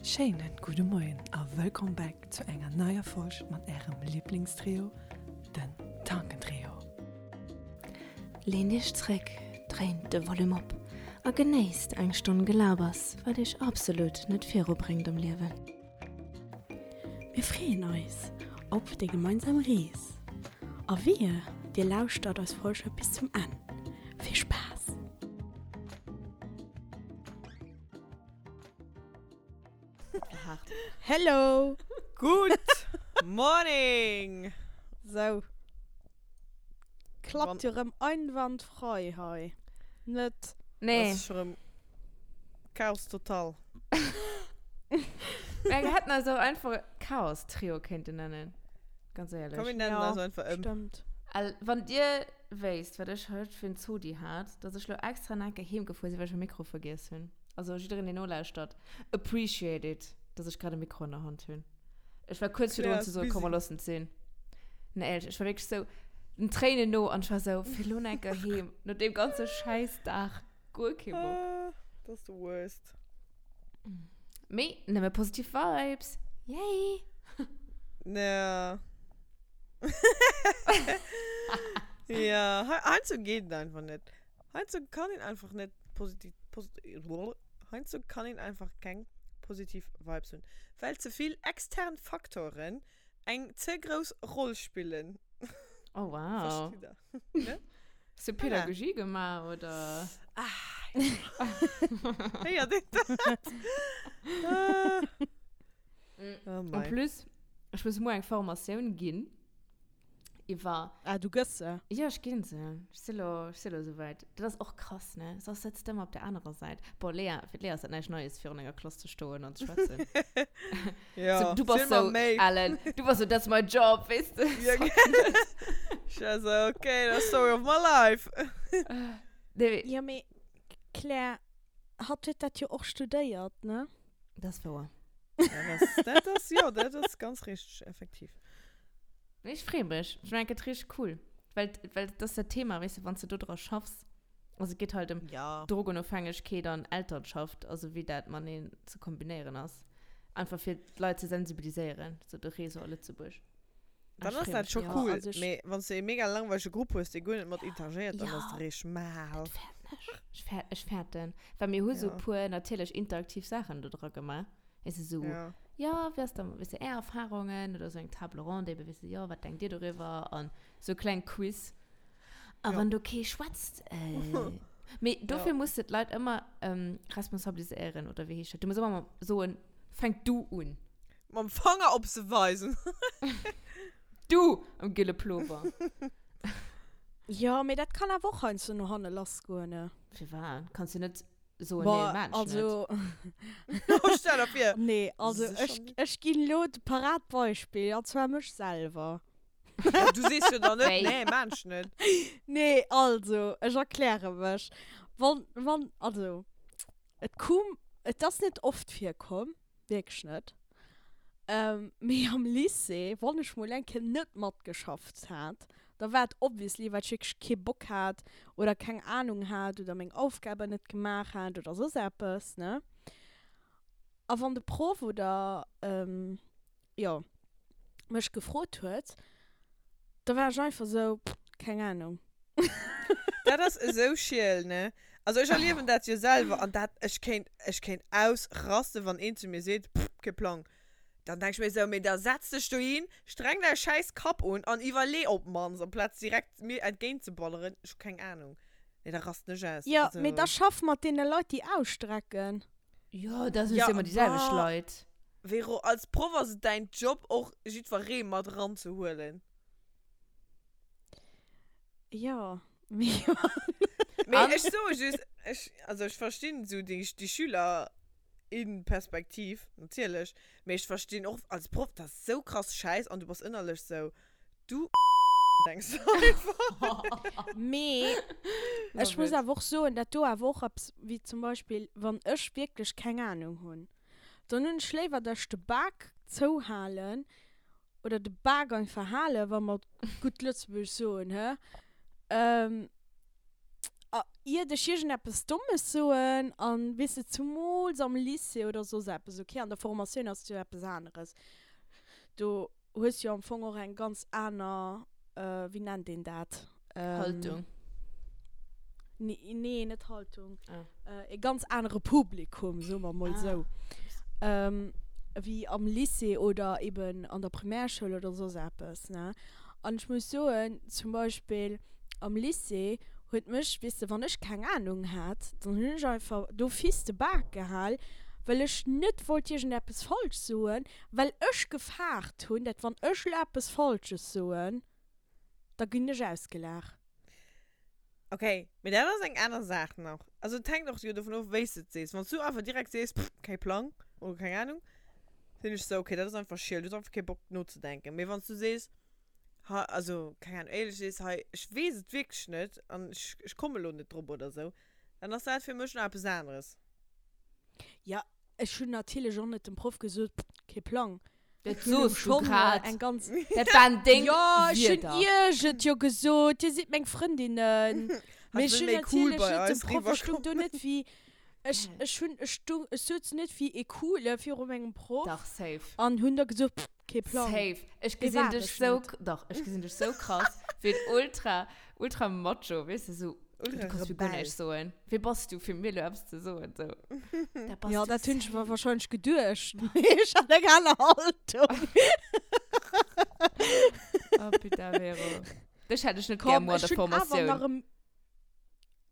Schéinen gudde Moien a wëllkomm back zu enger neier Folg mat ärem Liblingstrio, den Tankentrio. Leent iech zréck, dréint de Volume op a genéisst eng Stonn Gelabers, wat iech absolut net virubréngt am Liewen. Mir freeën eis op déi gemeinsam Rees a wehe dir lauschtert eis Folge bis zum Enn. Vill Spaass! Hello! Good morning! Sou. Klappt jo rëm einwandfrei hei. Net? Nee. Das ist rëm Chaos total. Mir hätten eis och einfach Chaos-Trio kéinten nennen. Ganz éierlech. Komm, mir nennen eis einfach ëm. Stëmmt. Al, wann dir wéisst, wat ech haut fir en Zodi hat, dass ech lo extra nach eng Kéier heem gefuer sinn, well ech mäi Mikro vergiess hunn. Also jiddereen, deen nolauschtert, appreciate it, dass ech grad e Mikro an der Hand hunn. Ech war kuerz virdrun ze soen, komm, mer loossen et sinn. Nee, éierlech, ech war wierklech sou den Tréinen no an ech war sou, fir lo nach eng Kéier heem, no deem ganze Schäissdag, guer kee Bock. Ah, dat ass the worst. Mee nëmme positiv Vibes. Yay! Ja. Ja, heiansdo geet et einfach net. Heiansdo kann een einfach net positiv, posit, heiansdo kann een einfach keng positiv Vibes hunn, well ze vill extern Faktoren eng ze grouss Roll spillen. Oh wow. Versteet der? Ne? Hast du Pädagogie gemaach oder? Ah, ja. Héiert een dat? Ah. Oh En mei. plus, ech muss muer eng Formatioun ginn. Iwwer. Ah, du gëss se? Jo, ech ginn se. Ech si lo, ech si lo esouwäit. Dat ass och krass, ne? Soss sëtz de ëmmer op der anerer Säit. Bon, Lea, fir d'Lea ass dat näischt Neies, virun enger Klass ze stoen an ze schwätzen. Jo, So, du bass ziel mer sou, méi. Ellen, du bass sou, that's my job, weess de? Ja, Sorry. Ech war sou, okay, that's story of my life. Nee, mee. Jo, mee Claire, hatt huet dat jo och studéiert, ne? Dat ass wouer. Ja, dat ass, dat ass, jo, dat ass ganz richteg, effektiv. Nee, ech freeë mech. Ech mengen, et gëtt richteg cool. Well, well dat ass dat Thema, weess de, wann s de do dra schaffs. Also et geet halt ëm Ja. Drogenofhängegkeet an Elternschaft, also wéi dat mateneen ze kombinéieren ass. Einfach fir d'Leit ze sensibiliséieren, sou de Réseau a Lëtzebuerg. Ah, Dann ech ass freeë dat mech scho mega. Ja, cool. also ech. Mee wann s de ee mega langweilege Grupp hues, dee guer net mat interagéiert, dann Ja, ass et richteg mal. dat fäerten ech. Ech fäert, ech fäerten. Well mir hu sou Ja. puer natierlech interaktiv Saachen do dra gemaach. Weess de, sou, Ja. jo, wéi ass da, weess de, är Erfahrungen oder sou eng Table ronde ebe, weess de, jo, wat denkt dir doriwwer an sou kleng Quiz. A Ja. wann do kee schwätzt, äh, mee dofir Ja. muss de d'Leit ëmmer ähm, responsabiliséieren, oder wéi heescht dat? Du muss ëmmer soen, fänk du un. Mam Fanger op se weisen. Du am gille Plover. Jo, mee dat kann awer och heiansdo no hanne lassgoen, ne? Firwat? Kanns du net soen, nee, Boah, maan ech net. also. Oh, stell der vir. Nee, also Sécher ech, net. ech ginn elo de Paradbeispill, an zwar mech selwer. Ja, du sees jo dann net, Wéi? nee, maan ech net. Nee, also, ech erkläre mech. Wann, wann, also, et koum, et ass net oft virkomm, wierklech net, mee am Lycée, wann ech mol eng Kéier net matgeschafft hat, da war et obviously, well ech wierklech kee Bock hat oder keng Ahnung hat oder meng Aufgaben net gemaach hat oder soss eppes, ne. A wann de Proff oder, jo, mech gefrot huet, da war ech einfach sou, keng Ahnung. Dat ass esou schiel, ne? Also ech erliewen dat jo selwer an dat, ech kéint, ech kéint ausrasten, wann een zu mir seet, pff, kee Plang. Dann denk ech mir esou, mee da setz dech dohin, streng däi schäiss Kapp un an iwwerlee op d'mannst, amplaz direkt mir entgéint ze balleren, ech hu keng Ahnung. Nee, da rasten ech aus. Jo, Also. mee da schaff mat deene Leit, déi ausstrecken. Jo, dat sinn Ja, jo ëmmer déi selwecht bah, Leit. Vero, als Proff ass et däin Job och jiddweree mat eranzehuelen. Jo, mee. Mee An? ech soe just, ech, also ech verstinn esou déi, déi Schüler-in-Perspektiv, natierlech, mee ech verstinn och als Proff, dat ass esou krass schäiss an du bass ënnerlech esou, du denks du einfach. Mee ech Love muss it. awer och soen, dat do awer och eppes, wéi zum Beispill, wann ech wierklech keng Ahnung hunn, dann hunn ech léiwer, dass ech de Bak zouhalen oder de Bak einfach halen, wa mer gutt Lëtzebuergesch soen, hä? Iert ech iergendeppes Dommes soen, an weess de, zumools am Lycée oder soss eppes, okay, an der Formatioun ass et jo eppes aneres, do hues jo am Fong och eng ganz aner, wéi nennt een dat? Haltung. Nee, net Haltung. E ganz anere Publikum, soe mer mol esou, wéi am Lycée oder eben an der Primärschoul oder soss eppes, ne? An ech muss soen, zum Beispill am Lycée huet mech, weess de, wann ech keng Ahnung hat, dann hunn ech einfach d'office de Bak gehal, well ech net wollt iergendeppes falsch soen, well ech gefaart hunn, dat wann ech elo eppes Falsches soen, da ginn ech ausgelaach. Okay, mee dat ass eng aner Saach nach. Also et hänkt och jo dovun of, wéi s de et sees. Wann s du einfach direkt sees, pff, kee Plang oder keng Ahnung, sinn ech sou, okay, dat ass einfach schiel, du hues einfach kee Bock nozedenken. Mee wann s du sees, ha, also keng Ahnung, éierlech sees, hei, ech weess et wierklech net an ech, ech komme lo net drop oder sou, dann ass dat fir mech nach eppes aneres. Ja, ech hunn natierlech och net dem Proff gesot, pff, kee Plang. Dat soos du grad. Eng ganz Dat waren deng Ja, ech hunn Wierder. iech et jo gesot, dir sidd meng Frëndinnen. Mee ech wëll hunn méi cool natierlech bei net dem eis Proff, ech stung do riwwerkommen. net wéi, ech, ech hunn, ech stung, ech souz net wéi ee Coole viru mengem Proff. Dach, safe. An hunn da gesot, pff, kee Plang. Safe. Ech Dee gesinn war dech ech sou, net. dach, ech gesinn dech sou krass, wéi en ultra, ultra Macho, weess de, sou, du kanns mir guer näischt soen. Wie bass du, fir mir elo eppes ze soen, sou. Dat bass ja, dat hunn ech mer wahrscheinlech geduecht. Mee ech hat eng aner Haltung. Oh, putain, Vero. Dech hätt ech net gär muer an der Formatioun. Nach e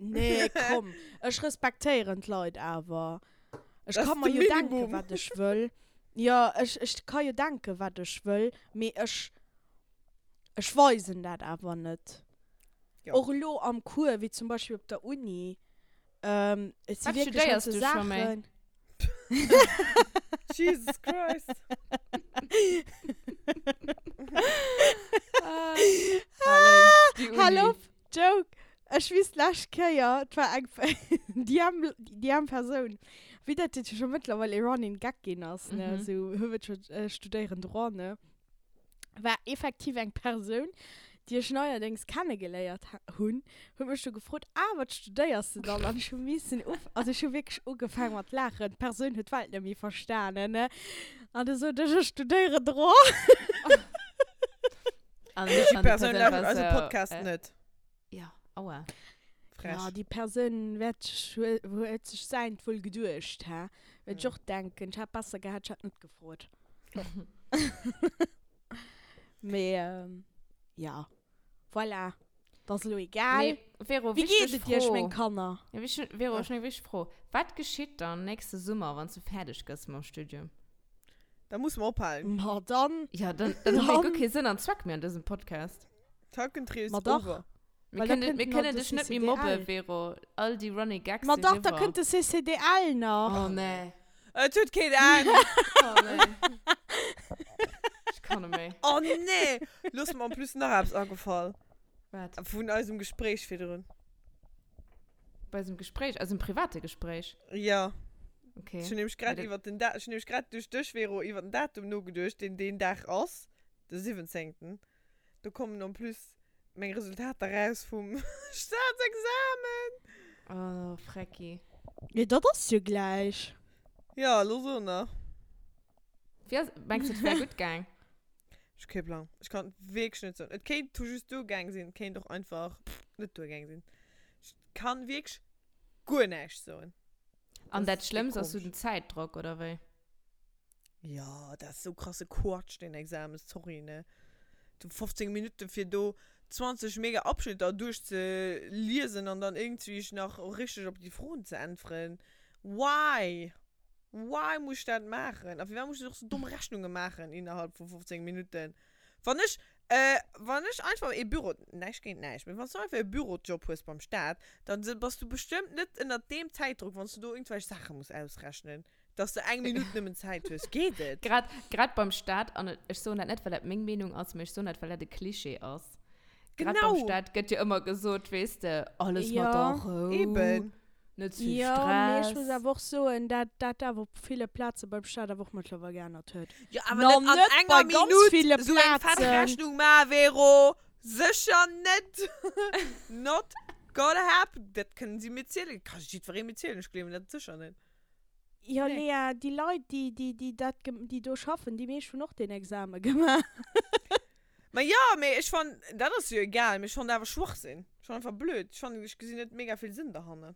Nee, komm. Ech respektéieren d'Leit awer. Ech kann mer jo denken, wat ech wëll. Jo, ech, ech ka jo denken, wat ech wëll, mee ech, ech weisen dat awer net. Jo. Och elo am Cours, wéi zum Beispill op der Uni, ähm, et si Wat wierklech studéiers halt sou du scho méi? Saachen. Jesus Christ. Hal op, Joke! Ech weess d'lescht Kéier, et war eng, déi am, déi am Persoun, wéi dat jo scho mëttlerweil e Running Gag ginn ass, ne, Mhm. sou, hu wëll scho studéieren Droit, ne. war effektiv eng Persoun, déi ech neierdéngs kennegeléiert hunn, huet mech du gefrot, ah, wat studéiers de dann? An ech hu missen uf, also ech hu wierklech ugefaang mat laachen. D'Persoun huet d'Welt net méi verstanen, ne? An du sot ech, ech studéieren Droit. An Déi an déi Persoun Persoun lauschtert war eise sou, Podcast äh, net. Ja, aua. Frech. Ja, déi Persoun wäert sech, huet sech säint wuel geduecht, hä? Wäert ech och denken, ech hätt besser gehat, ech hätt net gefrot. Mee, ähm, ja. Voilà. Dat ass elo egal. Mee, Vero, Wéi geet wichteg et iech, Fro. meng Kanner? Ja, wich, Vero, ech hunn eng wichteg Fro. Wat geschitt dann nächste Summer, wann s du fäerdeg gëss mam Studium? Da musse mer ophalen. Ma dann. Ja, dann, dann hu mir guer Dann. kee Sënn an Zweck méi an dësem Podcast. Tackentrio Ma is dach. over. Mir Well da kënnen, kënnt mir nach kënnen de dech net méi CCDL. mobben, Vero. All déi Running Gags Ma sinn dach, da eriwwer. kënnt de CCDL nach. Oh nee. Et huet keen Enn. Oh nee. Ech kann net méi. Oh nee. Lo ass mer en plus nach eppes agefall. Wat? Vun eisem Gespréich virdrun. Bei eisem Gespréich? Eisem private Gespréich? Ja. Okay. Ech hunn nämlech grad iwwer den Da-, ech hunn nämlech grad duerch dech, Vero, iwwer den Datum nogeduecht, deen deen Dag ass, de 17. Do kommen en plus meng Resultater raus vum Staatsexamen. Oh, Frecki. Jo, dat ass jo gläich. Ja, lo so nach. Wéi ass, mengs du, et wär gutt gaang? Ech hu kee Plang. Ech kann et wierklech net soen. Et kéint tout juste duergaang sinn, et kéint och einfach net duergaang sinn. Ech kann wierklech guer näischt soen. An Dat dat ass Schlëmmst ass sou komesch. den Zäitdrock, oder wéi? Jo, dat ass sou krasse Quatsch, deen Examen, sorry, ne. Du 15 Minutten fir do 20 mega Abschnitter duerchzeliesen an dann iergendwéi nach richteg op déi Froen ze äntweren. Why? Why muss ech dat maachen? A firwat muss ech och sou domm Rechnunge maachen innerhalb vu 15 Minutten? Wann ech, wann ech einfach ee Büro, näischt géint näischt, mee wann s du einfach ee Bürojob hues beim Staat, dann bass du bestëmmt net ënnert deem Zäitdruck, wann s du do iergendwelch Saache muss ausrechnen. Dass de eng Minutt nëmmen Zäit hues, geet et? Grad, grad beim Staat, an ech soen dat net, well dat meng Meenung ass, mee ech soen dat, well dat e Klischee ass. Grad beim Genau! Staat gëtt jo ëmmer gesot, weess de, alles Ja. mat der Rou, Eben. net ze vill Jo, mee ech muss Stress. awer och soen, dat dat awer op ville Plaze beim Staat awer och mëttlerweil geännert huet. Jo, awer Na, net an net enger bei ganz Minutt ville esou eng fett Plazen. Rechnung maachen, Vero! Sécher net! Not. Gotta happen. Dat kënnen si mir zielen. Ka jiddweree mir zielen. Ech gleewen dat sécher net. Jo, Nee. Lea, déi Leit, déi, déi, déi dat, déi do schaffen, déi meescht hunn och deen Exame gemaach. Ma jo, mee ech fannen, dat ass jo egal, mee ech fannen awer Schwachsinn. Ech fannen einfach blöd. Ech fannen, ech gesinn net mega vill Sënn derhannen.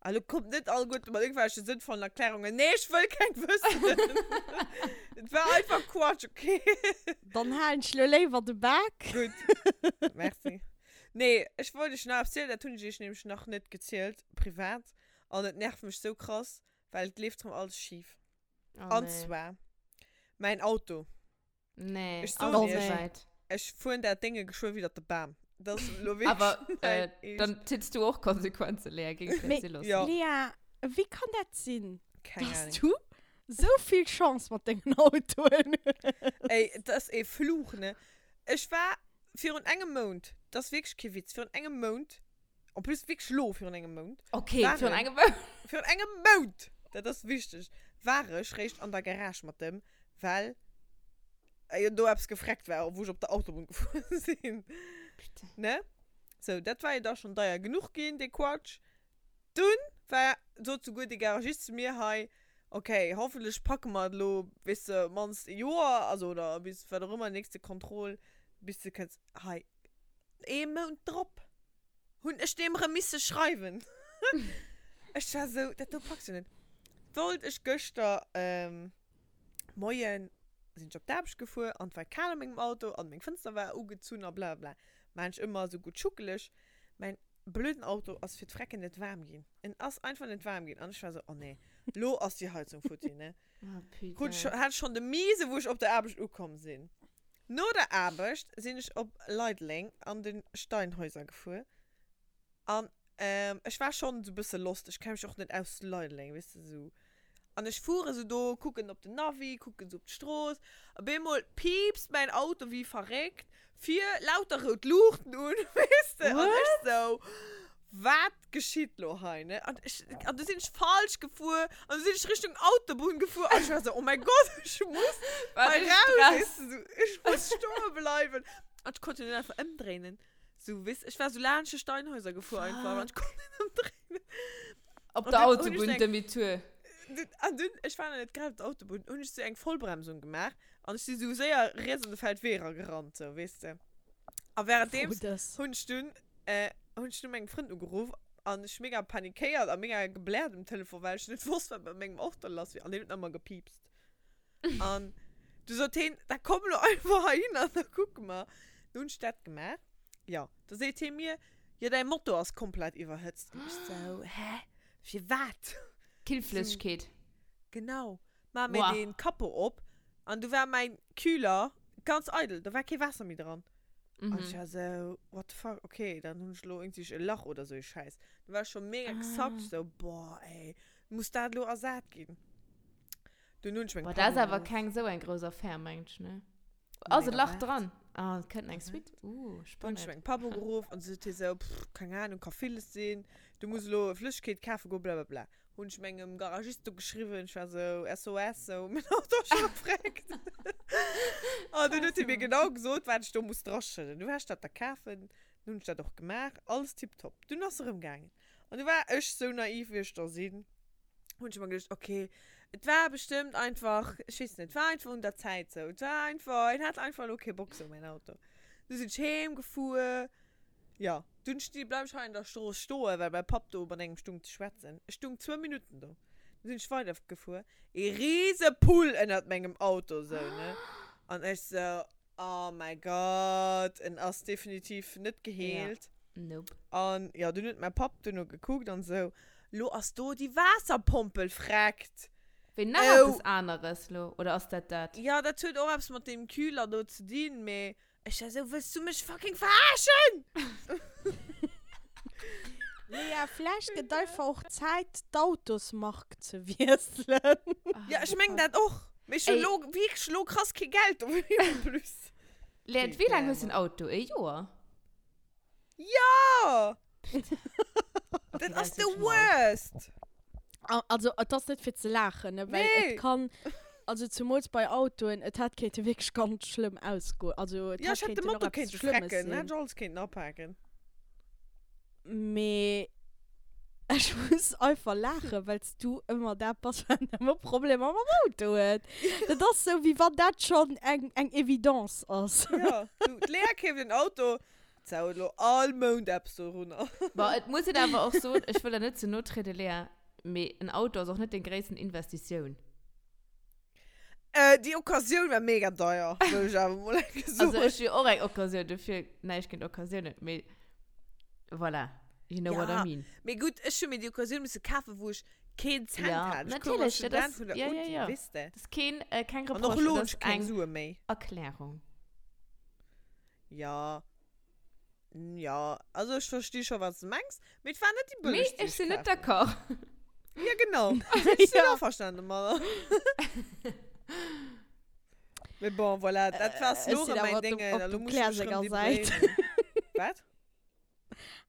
A lo kommt net alleguerte mat irgendwelche sënnvollen Erklärungen. Nee, ech wëll keng wëssen. Et war einfach Quatsch, okay? Dann halen ech lo léiwer de Bak. Gutt. Merci. Nee, ech wollt iech nach eppes zielen, dat hunn ech iech nämlech nach net gezielt, privat. An et nervt mech sou krass, well et leeft rëm alles schif. Oh, An nee. zwar, mäin Auto. Nee, Ech soen alles iech, soweit. ech fueren dat Dénge geschwë widder de Bam. Dat ass elo wierklech Aber mäin äh, Eescht. dann zitts du och Konsequenzen, Lea, géing ich Mee, dir loossen. Ja. Lea, wéi kann dat sinn, Keng dass Ahnung. du sou vill Chance mat dengen Autoen hues? Ey, dat ass ee Fluch, ne? Ech war virun engem Mount, dat ass wierklech kee Witz, virun engem Mount, en plus wierklech lo virun engem Mount, Okay, war virun ech, engem Mount. virun engem Mount, dat ass wichteg, war ech réischt an der Garage mat dem, well jo do eppes gefreckt war, wou ech op der Autobunn gefuer sinn. Putain. Ne? Sou, dat war jo da schonn deier genuch ginn, dee Quatsch. Dunn war, sot souguer dee Garagist zu mir hei, okay, hoffentlech packe mer et elo, weess de, mannst e Joer, also oder bis wat och ëmmer, nächste Contrôle, bis de kënns hei. Ee Mount drop hunn ech deem erëm misse schreiwen. Ech war sou, dat do packs du net. Wollt ech gëschter, Moien, sinn ech op d'Aarbecht gefuer an et war kal a mengem Auto an meng Fënster war ugezunn a blablabla. Maan ech ëmmer esou gutt schuckeleg. Mäin blöden Auto ass fir d'Frecken net waarm ginn. En ass einfach net waarm ginn an ech war esou, oh nee, lo ass déi Heizung futti, ne? Oh Krut ech, putain. hat ech schonn de Miese wou ech op der Aarbecht ukomm sinn. No der Aarbecht sinn ech op Leideleng an de Steinhäuser gefuer an ech war schonn esou bësse lost, ech kenne mech och net aus Leideleng, weess de, esou. An ech fuere sou do, kucken op den Navi, kucken sou op d'Strooss. Op eemol piipst mäin Auto wéi verréckt, vir lauter rout Luuchten un, weess de. An ech sou, wat geschitt lo hei, ne? An ech, an du sinn ech falsch gefuer, an du sinn ech Richtung Autobunn gefuer, an ech war sou, oh mäi Gott, ech muss Wat hei e raus, Stress. weess de, sou, ech muss stoe bleiwen. An ech konnt jo net einfach ëmdréinen. Sou, weess, ech war sou laanscht de Steinhäuser gefuer einfach, an ech konnt net ëmdréinen. Op An der dunn hunn ech Autobunn, so eng- Demi-tour. Dunn, an dunn, ech war nach net grad op der Autobunn, hunn ech sou eng Vollbremsung gemaach an ech si sou séier riets an de Feldwee era gerannt, sou, weess de. A währenddeems Froh dës. hunn ech dunn, äh, hunn ech dunn mengem Frënd ugeruff an ech mega panikéiert a mega gebläert um Telefon, well ech net wosst, wat mat mengem Auto lass wier. An deen huet nach ëmmer gepiipst. An du sot heen, da komm lo einfach heihin an da kucke mer. Du hunn ech dat gemaach. Jo, da seet hee mir, jo däi Motor ass komplett iwwerhëtzt. An ech sou, hä? Firwat? Killflëssegkeet. Genau. Maa mir Boah. dee Capot op an du war mäin Kühler ganz eidel, do war kee Waasser méi dran. An ech war sou, what the fuck, okay, dann hunn ech lo iergendwéi e Lach oder sou ee Schäiss. Du war ech scho mega gezackt, sou, boah ey, muss dat lo ersat ginn? Dunn hunn ech meng Boah, dat ass Pannen awer auf. keng sou eng grouss Affär, mengt ech, ne? Ass Nee, e Lach waart. dran? Ah, et kënnt eng Suite. Uh, Dunn hunn ech spannend. meng Papp ugeruff an se sot hie sou, pff, keng Ahnung, ka villes sinn, du muss elo Flëssegkeet kafe goen, blablabla. Hunn ech mengem Garagist do geschriwwen, ech war sou, SOS, sou, mäin Auto ass scho gefreckt. An dunn huet hie mir genau gesot, wat ech do muss draschëdden. Du war ech dat da kafen, dunn hunn ech dat och gemaach, alles tiptop. Dunn ass erëm gaangen. An du war ech sou naiv, wéi ech da sinn, hunn ech mer geduecht, okay, et war bestëmmt einfach, ech weess net, et war einfach un der Zäit sou. Et war einfach, en hat einfach elo kee Bock sou, mäin Auto. Du sinn ech heem gefuer, jo, dunn sti, bleif ech hei an der Strooss stoen, well mäi Papp do mat engem stung ze schwätzen. Ech stung zwou Minutten do. Du sinn ech weider gefuer, ee rise Pull ënnert mengem Auto sou, ne? An ech sou, Oh mäi Gott, en ass definitiv net geheelt. Nope. An jo, dunn huet mäi Papp duerno gekuckt an esou, Lo ass do déi Waasserpompel freckt. Wéi nach Oh. eppes aneres lo, oder ass dat dat? Jo, dat huet och eppes mat deem Kühler do ze dinn, mee ech war esou, Wëlls du mech fucking verarschen? Lea, vläicht gëtt einfach och Zäit, d'Autosmark ze wiesselen. Ja, ech mengen dat och. Mee ech hunn Ey. lo wierklech lo krass kee Geld dofir en plus. Lea, wéi laang hues du den Auto? E Joer? Jo! Okay, Dat ass ist the wirklich mal. worst! Also, et ass net fir ze laachen, ne, well Nee. et kann, also zumools bei Autoen, et hätt kéinte wierklech ganz schlëmm ausgoen. Also, et Ja, hätt ech hätt de kéinten och Motor eppes kéinte Schlëmmes frecken, sinn. hätt ech alles kéinten apaken. Mee ech muss einfach laachen, well s du ëmmer dat bass, wat ëmmer Problemer mam Auto huet. Dat ass sou, wéi wann dat schonn eng, eng Evidence ass. Jo, du, d'Lea keeft en Auto, d'Sau huet elo all Mount eppes dorunner. Bon, et muss een awer och soen, ech wëll der net ze no trieden, Lea, mee en Auto ass och net deng gréissten Investitioun. Äh, déi Occasioun war mega deier, wëll ech awer mol eng Kéier soen. Also ech hu jo och eng Occasioun, dofir näischt géint Occasiounen, mee voilà, you know what I Ja, mean. mee gutt, ech hu mir déi Occasioun misse kafen, wou ech keen Cent Ja, hat. Ech koum als natierlech, dat Student ass, vun der ja, ja, Uni, ja. weess de. Dat ass keen, äh, keng An och Reproche, elo dat hunn ass ech keng eng Sue méi. Erklärung. Ja, ja, also ech versti scho, wat s de mengs, mee et war net déi Mee bëllegst, déi ech ech sinn net kaf hunn. d'accord. Ja, genau. Ech sinn Ja. averstanen domadder. Mee bon, voilà, dat war Ech sinn elo erëm awer mäin op dem, Déngen. op Elo dem muss ech Claire mech erëm senger débrouillen. Säit. Wat?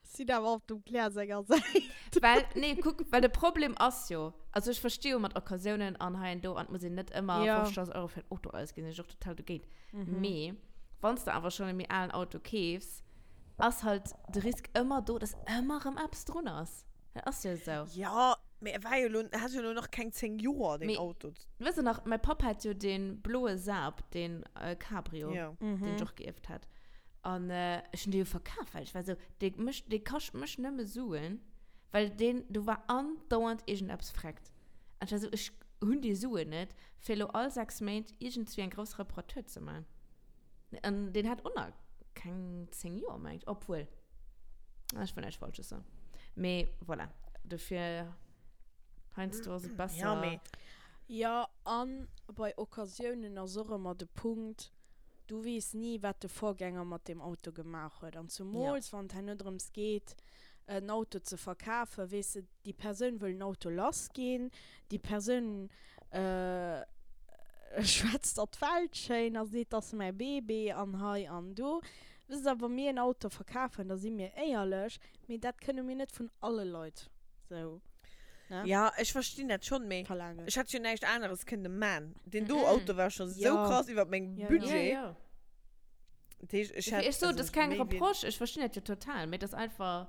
Sinn awer op dem Claire senger Säit. Well, nee, kuck, well de Problem ass jo, also ech versti jo mat Occasiounen an hei an do, an et muss een net ëmmer Ja. 50.000 Euro fir en Auto ausginn, sinn ech och total dogéint. Mee wann s de awer schonn e méi alen Auto keefs, ass halt de Risk ëmmer do, dass ëmmer erëm eppes drun ass. Dat ass jo esou. Ja, mee e war jo elo, hat jo elo nach keng 10 Joer, deen Mee Auto. wësst der nach, mäi Papp hat jo dee bloe Saab, dee Cabrio, Ja. deen ech och geierft hat. An ech hunn dee jo verkaf, well ech war esou, dee mécht, dee kascht mech nëmme Suen, well deen, do war andauernd iergendeppes vreckt. An ech war esou, ech hunn déi Suen net, fir elo all 6 Méint iergendzwéi eng grouss Reparatur ze man. An deen hat och nach keng 10 Joer, meng ech, obwuel, ech wëll näischt Falsches soen. Mee voilà, dofir, heiansdo ass et besser. Ja, mee. Jo, an bei Occasiounen ass och ëmmer de Punkt, Du weess ni, wat de Vorgänger mat deem Auto gemaach huet. An zumools, wann et herno drëms geet, en Auto ze verkafen, weess de, déi Persoun wëll den Auto lassginn, déi Persoun schwätzt der d'Welt schéin a seet, dat ass mäi Bébé an hei an do. Wësst Der, wa mir en Auto verkafen, da si mir éierlech, mee dat kënne mir net vun alle Leit sou, ne? Ja, ech verstinn dat schonn, mee verlaangen. ech hätt jo näischt aneres kënne man. Deen do Auto war scho sou Ja. krass iwwert mengem Ja, ja. Budget. Ja, ja. Dat heescht, ech hätt, Ech so, also das ist kein méi wéi- Reproche, ich verstehe das ja total, mee das einfach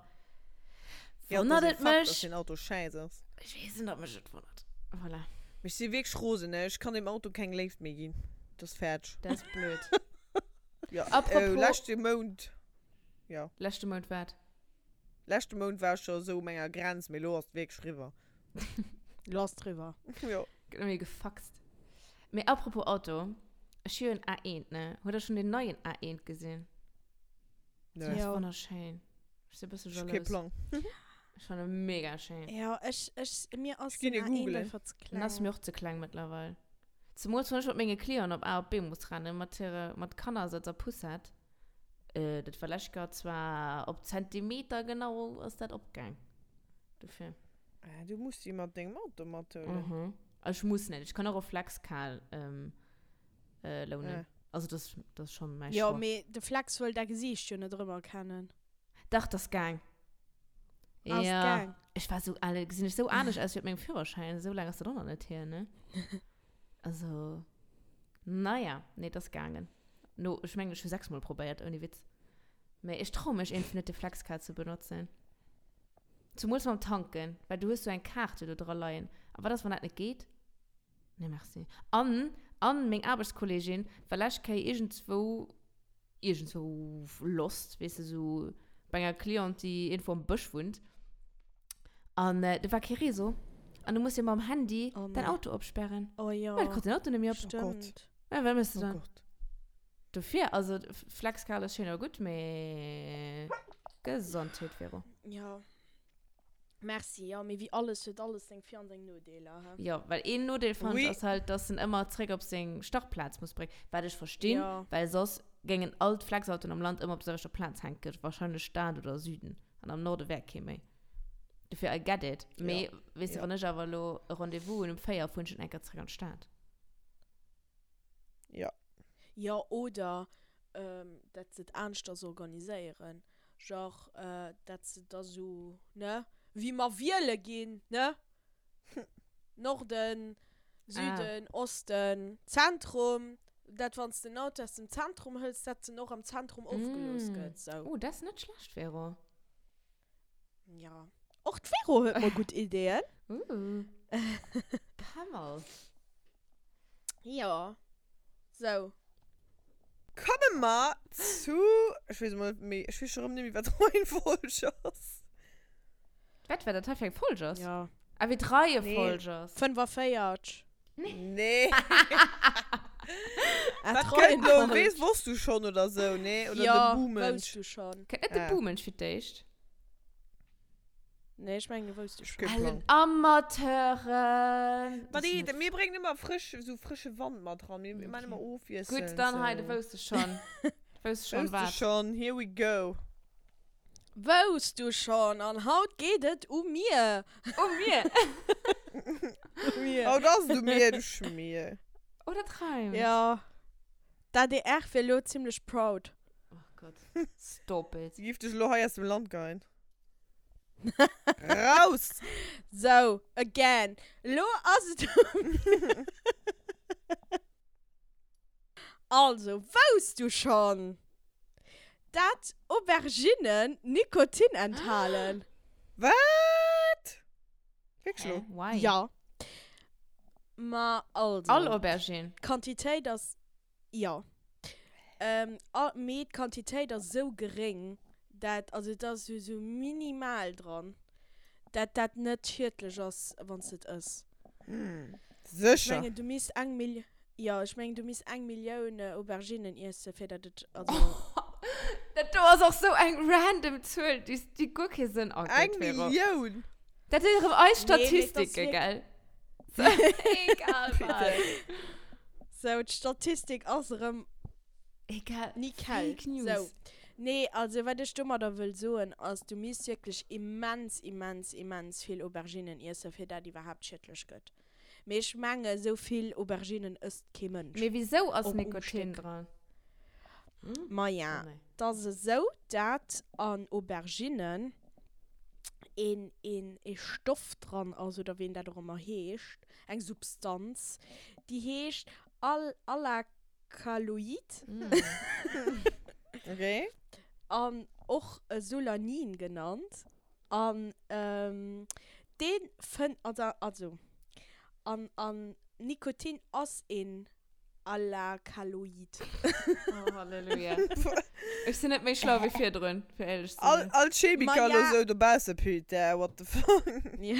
Ja, wonnert dat et ass e Fakt, dass mech. den Auto schäiss ass. Ich weess net, ob mech et wonnert. Voilà. Mee ech si wierklech rosen, ne? Ech kann deem Auto keng Léift méi ginn. Dat ass fäerdeg. Dat ass blöd. Ja, Apropos- äh, leschte Mount, ja. Leschte Mount wat? Leschte Mount war ech scho sou u menger Grenz, mee lo ass et wierklech riwwer. Lo ass et riwwer. Jo. Gëtt nëmme gefaxt. Mee apropos Auto, ech hu jo en A1, ne? Hutt der schonn deen neien A1 gesinn? Nee. Deen ass Jo. wonnerschéin. Ech si e bësse Ech hu kee jalous. Plang. Ech fannen e mega schéin. Jo, ech, ech, mir ass Ech ginn den e A1 googlen. einfach ze Den ass kleng. mir och ze kleng mëttlerweil. Zemools wann ech mat menge Clienten op A op B muss rennen, mat hire, mat Kannersëtz a Poussette. Äh, dat war lescht Joer zwar op Zentimeter genau ass dat opgaang. Dofir. Ah, du muss déi mat dengem Auto mathuelen. Mhm. Ech muss net, ech kann och e Flexcal ähm, äh, lounen. Ah. Also das, das ass schon mäi Jo, Choix. mee de Flex wëll däi Gesiicht jo net erëmerkennen. Dach, das gaang. Ass Ja. gaang. Ech war sou, ale, gesinn ech sou anescht aus wéi op mengem Führerschäin. Esou laang ass dat och nach net hier, ne? Also, naja, nee, das gaangen. No, ech mengen, ech hu 6 mol probéiert, ouni Witz. Mee ech trau mech iergendwéi net, de Flexcard ze benotzen. Zumools mam Tanken, well du hues sou eng Kaart jo do dra leien. A wat ass, wann dat net geet? Nee, merci. An, an meng Aarbechtskollegin war lescht Kéier iergendzwou, iergendzwou lost, weess de, sou bei enger Cliente, déi iergendwou am Bësch wunnt. An do war kee Réseau. An du muss jo mam Handy Oh däin nee. Auto opsperren. Oh jo. Well, kritt den Auto net méi op. Stimmt. Ja, wat méchs de Oh dann? Gott. Dofir, also Flexkal ass schéin a gutt, mee Gesondheet, Vero. Jo. Merci, jo, mee wéi alles huet alles seng Vir an seng Nodeeler, he? Jo, well een Nodeel fannen Oui. ech ass halt, dass en ëmmer zréck op seng Startplaz muss bréngen, wat ech verstinn, Jo. well soss géingen all d'Flexautoen am Land ëmmer op der selwechter Plaz hänken, wahrscheinlech Stad oder Süden, an am Norde wär kee méi. Dofir, I get it, mee Jo. weess de, Jo. wann ech awer elo e Rendez-vous hunn um 4, fueren ech net eng Kéier zréck an d'Stad. Jo. Jo, oder ähm, dat se et aneschters organiséieren. Genre, äh, dat se da sou, ne, wéi mer wiele ginn, ne? Norden, Süden, Ah. Osten, Zentrum. Dat wann s de den Auto aus dem Zentrum hëls, dat en och am Zentrum ofgelooss Mm. gëtt, sou. Oh, dat ass net schlecht, Vero. Ja. Och d'Vero huet mol gutt Ideeën. Uh. Pamel. Ja. Sou. Komme mer zu, ech weess emol net méi, ech weess scho rëm net méi, wat d'Reihenfolg ass. Wat, wat dat hei fir eng Folg ass? Ja. Ah, wéi d'Reihefolg ass. 45. Nee. Ah, Wat kënnt lo? d'Reihenfolg. Weess, wosst du schon oder sou, nee? Oder Ja, de Buhmensch? wousst du schon. Kënnt net de Ah. Buhmensch fir d'éischt? Nee, ech mengen, du wousst du schon. Kee Plang. Ellen Amateuren. Ma déi, mir bréngen ëmmer frësch, sou frësche Wand mat ran. Mir man ëmmer ofwiesselnd. Gutt, dann hei, du wousst es schon. Du wousst schon Wousst du wat. schon, here we go. Wousst du schon? An haut geet et u mir. U mir? U mir. Haut ass et u mir, du Schmier. Oh, dat reimt. Ja. D'ADR wier lo zimlech proud. Oh Gott. Stop it. Si giff dech elo hei aus dem Land geien. Raus! Sou, again. Elo ass et u mir. Also, wousst du schonn, dat Auberginnen Nikotin enthalen? Wat? Wierklech Hä? lo? Why? Ja. Ma also. All Aubergine? D'Quantitéit ass, jo. Ähm, a, mee d'Quantitéit ass esou geréng, dat, also et ass esou minimal dran, dat dat net schiedlech ass, wann s de et ëss. Ech Sécher? mengen, du misst eng Mil, jo, ech mengen, du misst eng Millioun Auberginnen iessen, fir dat et, also. Dat do ass och sou eng random Zuel, déi, déi guer kee Sënn ergëtt, Eng Vero. Millioun? Dat sinn erëm eis Nee, mee et ass Statistike, wierk- gell? Egal wat. Sou, d'Statistik ass erëm Egal. Nickel. Fake News. Sou. Nee, also wat ech domadder wëll soen ass, du misst wierklech immens, immens, immens vill Auberginnen iessen, fir dat iwwerhaapt schiedlech gëtt. Mee ech menge sou vill Auberginnen ësst kee Mënsch. Mee wisou ass Och um Nikotin Stéck. dran? Maja, Oh nee. 't ass esou, dat an Auberginnen een, een, ee Stoff dran ass, oder wéi en dat och ëmmer heescht, eng Substanz, déi heescht Al, Alakaloid. Okay. An och Solanin genannt. An dee fënnt, also, also, an, an Nikotin ass een Alakaloid. Oh, Halleluja. Ech sinn net méi schlau wéi virdrun, fir éierlech ze All, sinn. all Chemiker Ma ja. lo sou dobausse, putain, what the fuck. Ja.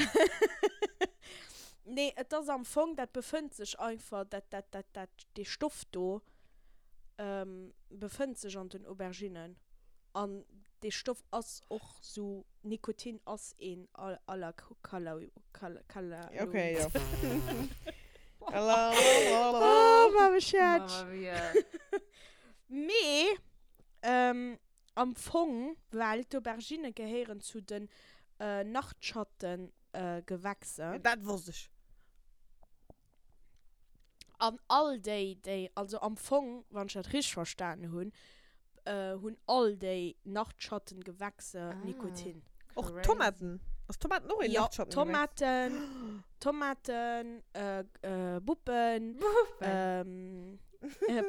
Nee, et ass am Fong, dat befënnt sech einfach, dat, dat, dat, dat, dee Stoff do befënnt sech an den Auberginnen. An dee Stoff ass och sou, Nikotin ass een Alakaloid. Okay, jo. Oh, Mame Schätz. Mamma mia. Mee am Fong, well d'Auberginne gehéieren zu den Nachtschattengewächser. Dat wosst ech. An all déi, déi, also am Fong, wann ech dat richteg verstanen hunn, hunn all déi Nachtschattengewächser Nikotin. Och Tomaten? Ass Tomaten och een Nachtschattengewächs? Jo, Tomaten, Tomaten, Buppen,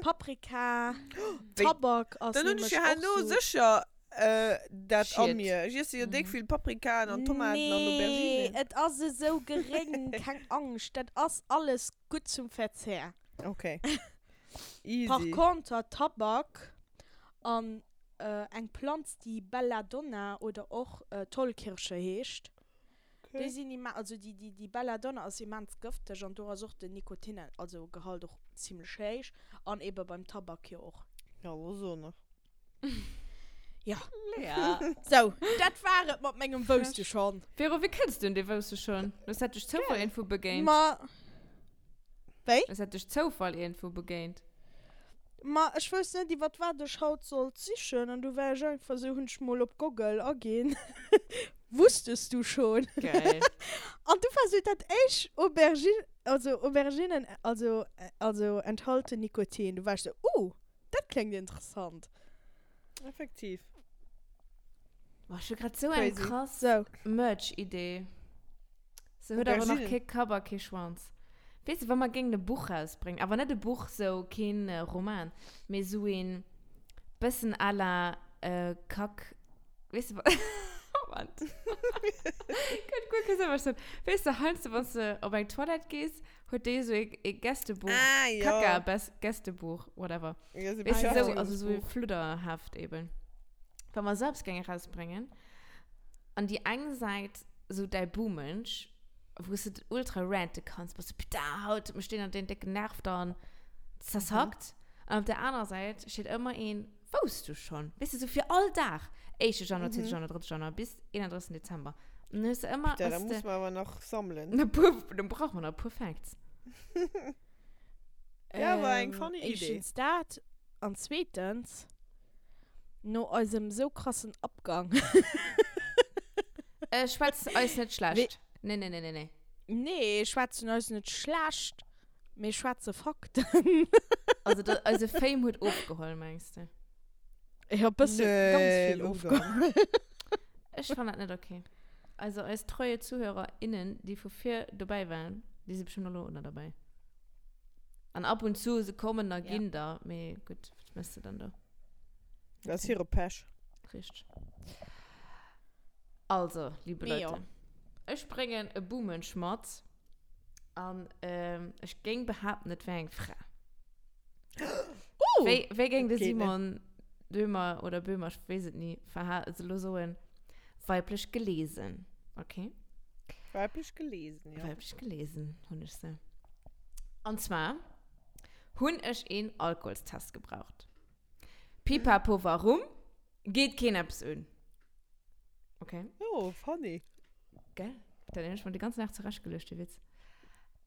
Paprika, Tabak ass Dann hunn ech nämlech jo och herno sou. sécher dat a Schied. mir. Ech iesse jo déck vill Paprikaen an Tomaten an Nee, Auberginen. et ass esou geréng, keng Angscht, dat ass alles gutt zum Verzehr. Okay. Par Easy. conter Tabak an eng Planz déi Belladonna oder och Tollkirsche heescht, déi sinn immen, also déi déi déi Belladonna ass immens gëfteg an do ass och den Nikotin, also Gehalt och zimlech héich an ebe beim Tabak jo och. Ja, lo so nach. Ja. Lea. Sou, dat war et mat mengem Wousst du schon. Vero, wéi kënns du un dee Wousst du schon? Hues dat duerch Zoufall iergendwou begéint? Ma, wéi? Hues dat duerch Zoufall iergendwou begéint? Ma ech wousst net iwwert wat ech haut sollt sichen an du war ech einfach sou, hunn ech mol op Goggle aginn, Wusstest du schon? Geil. An du war sou dat éischt Aubergine, also Auberginen, also also enthalten Nikotin. Du war ech sou, uh, dat kléngt interessant. Effektiv. Boah, ech hu grad sou eng Crazy. krass Sou. Merch-Idee. Se huet awer nach Auberginen. kee Kapp a kee Schwanz. Weess de, wa mer géingen e Buch rausbréngen, awer net e Buch, sou keen Roman, mee sou een bëssen à la Kack, weess de, wa. Moment. Kënnt guer kee Sënn, wat ech soen. Weess de, heiansdo, wann s de op eng Toilette gees, huet déi esou e, e Gästebuch. Ah, jo. Kaka, Bes, Gästebuch, whatever. Ja, so Weess de, esou, also esou e Beschäftigungsbuch. Fludderheft eben. Wa mer esou eppes géinge rausbréngen, an déi eng Säit esou däi Buhmensch, wou s de ultra rante kanns, bass du, putain, haut huet mech deen an deen décken Nerv dann zersackt. An op der anerer Säit steet ëmmer een, Wousst du schonn? Weess de, sou fir all Dag, éischte Januar, zweete Januar, drëtte Januar bis 31. Dezember. An dann hues de ëmmer, Putain, da hues de muss mer awer nach sammelen. e puer, dann brauche mer nach e puer Facts. Ja, war eng funny Idee. Éischtens dat an zweetens, no eisem sou krassen Abgang. Äh, schwätz eis net schlecht. Nee, nee, nee, nee, nee. Nee, schwätzen eis net schlecht, mee schwätze Fakten. Also, da, eise Fame huet ofgeholl, mengs de? Ja, bësse, Nee, ganz vill wou dann? ofgeholl. Ech fannen dat net okay. Also, eis treue ZuhörerInnen, déi vu vir dobäi waren, déi si bestimmt elo och nach dobäi. An ab und zu, se kommen a Ja. ginn da, mee gutt, wat méchs de dann do? Dat ass hire Pech. Richteg. Also, liebe Mee Leute, jo. ech bréngen e Buhmensch mat an ähm, ech géing behaapten, et wär eng Fra. Uh! Wéi, wéi géing de Dat geet net. Simon Dömer oder Böhmer, ech weess et ni, verha also lo soen, weiblech gelesen. Okay? Weiblech gelesen, ja. Weiblech gelesen hunn ech se. An zwar hunn ech een Alkoholstest gebraucht. Pipapo, warum? Geet keen eppes un. Okay. Oh, funny. Gell? Dat hunn ech mer de ganzen Dag zurechtgeluecht, de Witz.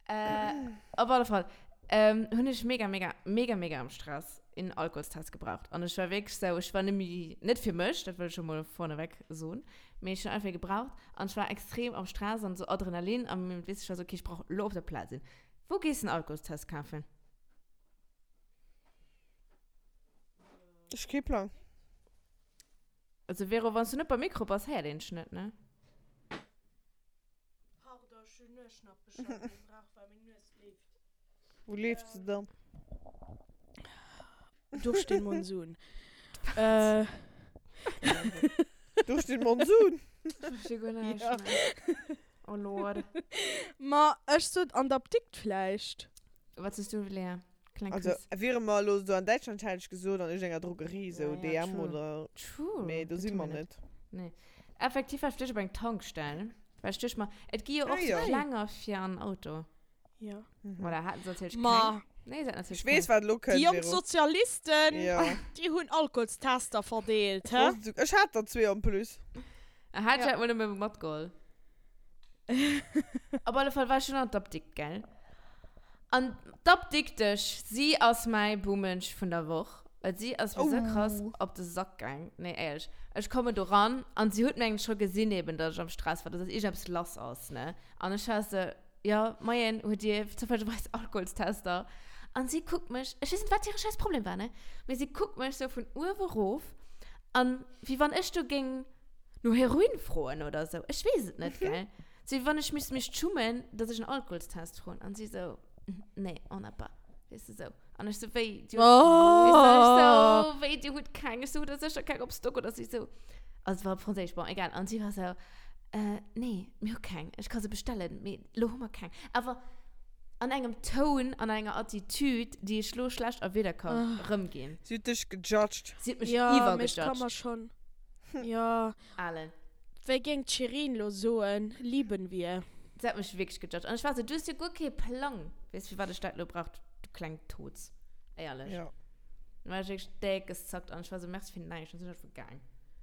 Äh, op alle Fall ähm, hunn ech mega, mega, mega, mega am Stress een Alkoholstest gebraucht. An ech war wierklech sou, ech war nëmme, net fir mech, dat wëll ech scho mol vorneweg soen, mee ech hunn einfach ee gebraucht. An ech war extrem am Stress an sou Adrenalin an weess, ech war sou, okay, ech brauch elo op der Plaz een. Wou gees de en Alkoholstest kafen? Ech kee Plang. Also Vero, wann s du net beim Mikro bass, héiert een dech net, ne? Pardon, ech hunn Nueschnappelcher gebraucht, well meng Nues leeft. Wou leeft se dann? Durch den Monsun. Äh. Durch den Monsun? Ech versti guer näischt Ja. méi. Oh Lord. Ma ech sot an der Apdikt vläicht. Wat sos du, Lea? Kleng Also, Quiz. wiere mer elo do an Däitschland, hätt ech gesot, an iergendenger Drogerie, sou Ja, ja, DM true. oder. True. Mee do Dat si hu mer mer net. Nee. Effektiv war ech fir d'éischt op eng Tankstell. Well ech duecht mer, et gi jo och Ah, sou jo. Klenger fir an Auto. Ja. Voilà, haten se natierlech Ma. keng. Nee, se haten natierlech Ech weess, keng. wat elo Déi kënnt, jonk Vero. Sozialisten, Ja. déi hunn Alkoholstester verdeelt, Ech hä? wosst et sou. Ech hat der zwee en plus. Hat Ja. ech mol nëmme matgeholl. Op alle Fall war ech schon an d'Apdikt, gell? An d'Apdiktesch, si ass mäi Buhmensch vun der Woch, well si ass mir sou krass Oh. op de Sack gaang. Nee, éierlech. Ech kommen do ran an si huet mengen scho gesinn eben, dass ech am Stress war, dass iergendeppes lass ass, ne? An ech war sou, jo, moien, huet Dir zoufällegerweis Alkoholstester? An si kuckt mech, ech weess net, wat hire scheiß Problem war, ne? Mee si kuckt mech sou vun uewe rof an wéi wann ech do géing no Heroin froen oder sou. Ech weess et net, gell? Sou wéi wann ech misst mech schummen, dass ech en Alkoholstest froen. An si sou, Nee, on n'a pas. Weess de, sou. An ech sou, wéi, dir hutt, weess de, ech sou, wéi, dir hutt keng? Ech sou, hutt der sécher keng op Stock oder si sou. Also et war op Franséisch, bon, egal. An si war sou, äh, nee, mir hu keng. Ech ka se bestellen, mee lo hu mer keng. Awer an engem Toun, an enger Attitude, déi ech lo schlecht a Wierder ka rëmginn. Si huet dech gejudged. Si huet mech Ja, mee ech ka iwwergejudged. mer schonn, ja. Alen. Wéi géing d'Shirin lo soen, lieben wir. Se hat mech wierklech gejudged. An ech war sou, du hues jo guer kee Plang. Weess, firwat ech dat lo brauch, du kleng Toz. Éierlech. Ja. Dann war ech wierklech déck gezackt an ech war sou, merci fir näischt. Dann sinn ech einfach gaang.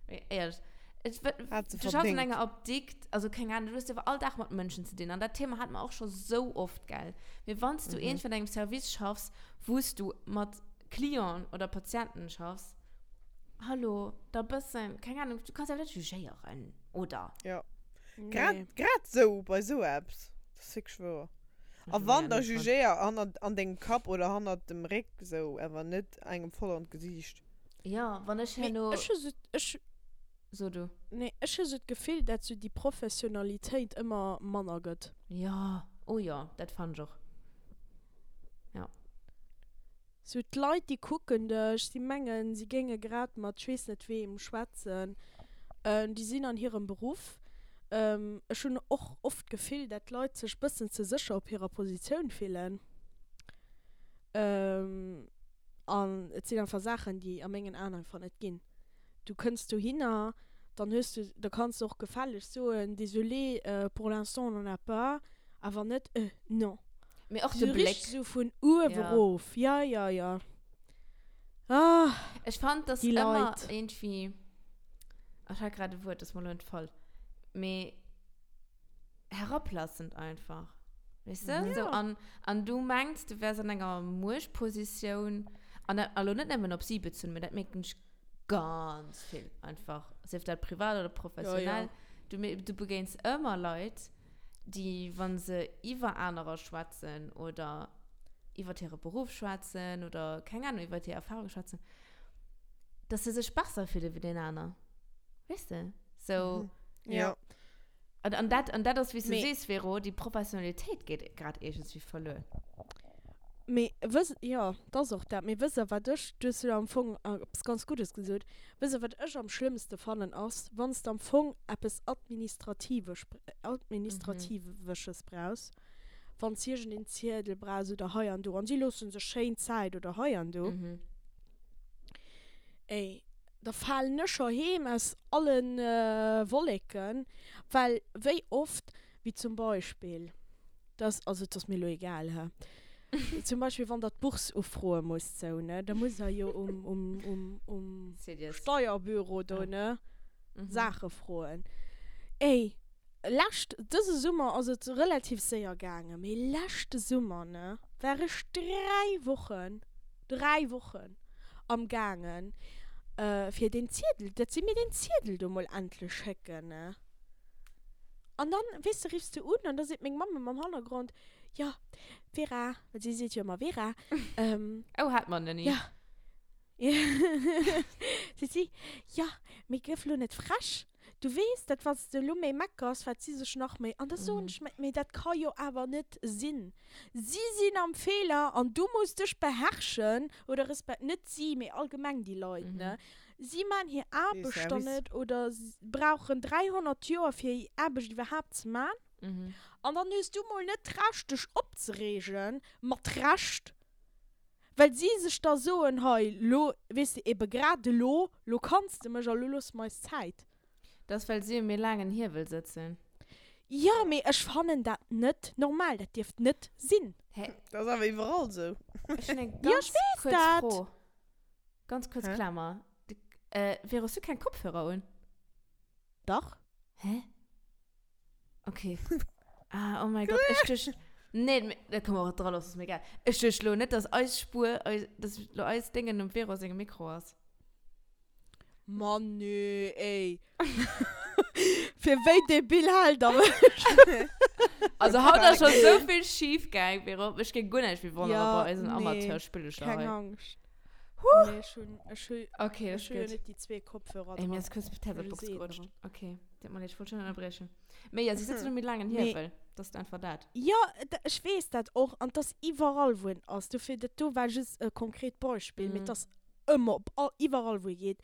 Mee éierlech, et, Hat se du schaffs an verdéngt. enger Apdikt, also keng Ahnung, du hues jo awer all Dag mat Mënschen ze dinn. An dat Thema hate mer och scho sou oft, gell. Mee wann s du iergendwéi an engem Service schaffs, wou s du mat Clienten oder Patienten schaffs, Hallo, da bëssen, keng Ahnung, du kanns awer net jugéieren, oder? Ja. Grad, Nee. grad sou, bei sou eppes. Dat ass wierklech wouer. A wann, da jugéier hannert, an dengem Kapp oder hannert dem Réck sou, awer net engem voll an d'Gesiicht. Ja, wann ech Mee herno. ech hu sou, ech, So du. nee, ech hu sou d'Gefill, dat sou déi Professionalitéit ëmmer manner gëtt. Ja, oh jo, dat fannen ech och. Ja. Sou d'Leit déi kucken dech, si mengen si géinge grad mat ech weess net weem schwätzen. Déi sinn an hirem Beruff. Ech hunn och oft d'Gefill, dat d'Leit sech bëssen ze sécher op hirer Positioun fillen. An et sinn einfach Saachen, déi a mengen Aen einfach net ginn. Du kënns dohinner, dann hues du, da kanns du och gefälleg soen, désolé, pour l'instant on n'en a pas, awer net, euh, non. Mee och de Sou Bléck. richteg sou vun uewe Ja. rof, ja, ja, ja. Ah, Ech fand, dass déi ëmmer Leit. iergendwéi, ech hat grad e Wuert, dat ass mer elo entfall, mee herablassend einfach. Weess de? Ja. Sou, an, an du mengs, du wärs an enger Muechtpositioun, an dat, elo net nëmmen op si bezunn, mee dat mierken ech ganz vill einfach, sief dat privat oder professionell. Ja, ja. Du, du begéins ëmmer Leit, déi, wa se iwwer anerer schwätzen oder iwwer hire Beruff schwätzen oder, keng Ahnung, iwwer hir Erfahrung schwätzen, dass se sech besser fille wéi deen aner. Weess de? So. Mhm. Ja. An, an dat, an dat ass, wéi s du Mee- sees, Vero, déi Professionalitéit geet grad iergendswéi verluer. Mee wëss, jo, 't ass och dat. Mee wësst Der, wat ech, du hues jo am Fong eppes ganz Guddes gesot, wësst Der, wat ech am schlëmmste fannen, ass, wann s de am Fong eppes Administrativesch, Administratiwesches brauchs, wann s iergendeen Ziedel brauchs oder hei an do, an si loosse sech schéin Zäit oder hei an do, ey, da falen ech scho heem aus allen Wolleken, well wéi oft, wéi zum Beispill, dass, also et ass mir elo egal, hä, zum Beispill wann der d'Bourse ufroe musst, sou, ne, da musst der jo um, um, um, um Steierbüro do, ne, Saache froen. Ey, lescht, dëse Summer ass et relativ séier gaangen, mee leschte Summer, ne, war ech 3 Wochen, 3 Wochen am gaangen, fir deen Ziedel, dat si mir deen Ziedel do mol endlech schécken, ne. An dann, weess de, riffs de un an da seet meng Mamm am Hannergrond, jo, Vera, well si seet jo ëmmer Vera, Oh, hat mer ni. Jo. Seet si, jo, mee gëff lo net frech. Du weess, dat wann s de elo méi meckers, wat si sech nach méi. An da soen ech mer, mee dat ka jo awer net sinn. Si sinn am Feeler an du muss dech beherrschen oder respe-, net si, mee allgemeng déi Leit, ne? Si man hir Aarbecht dann net oder brauchen 300 Joer fir hir Aarbecht iwwerhaapt ze man. An dann hues du mol net d'Recht dech opzereegen, mat Recht, Well si sech da soen, hei, lo, weess de, ebe grad elo, lo kanns de mech a lo loosse mer eis Zäit. Dat ass, well si um méi laangen Hiewel sëtzen. Jo, mee ech fannen dat net normal. Dat dierft net sinn. Hä? Dat ass awer iwwerall esou. Ech hunn eng Jo, ganz ech weess kuerz dat. Fro. Ganz kuerz Hä? Klammer. De, Vero, hues du keng Kopfhörer un? Dach. Hä? Okay. Ah, oh mein Gott, ech duecht. Nee, me- da kann man och dra loossen, ist mir egal. Ech duecht lo net, dass eis Spur, eis, dass lo eis Dingen um Vero sengem Mikro ass. Mann, nee, ey. Fir wéi debil hält der mech? Also haut ass schon so vill schief gaang, Vero. Mech géing guer näischt méi wonneren Ja, bei eisen nee, Amateurspillecher Keng hei. Angscht. Huh. Nee, ech hunn, ech hu, Okay, ech das hu jo ist gut. net déi zwee Kopfhörer Ey, mir dran. ist kurz die Tabletbox Ech hu se gerutscht. dran. Okay, tut mir leid, ich wollte schon unterbrechen. Mee ja, sie sitzen um méi laangen Mee- Hiewel. Das ist einfach dat. Jo, ech weess dat och. An 't ass iwwerall, wou en ass. Dofir, dat do war just e konkret Beispill, mee Mhm. 't ass ëmmer op all, iwwerall, wou ee geet.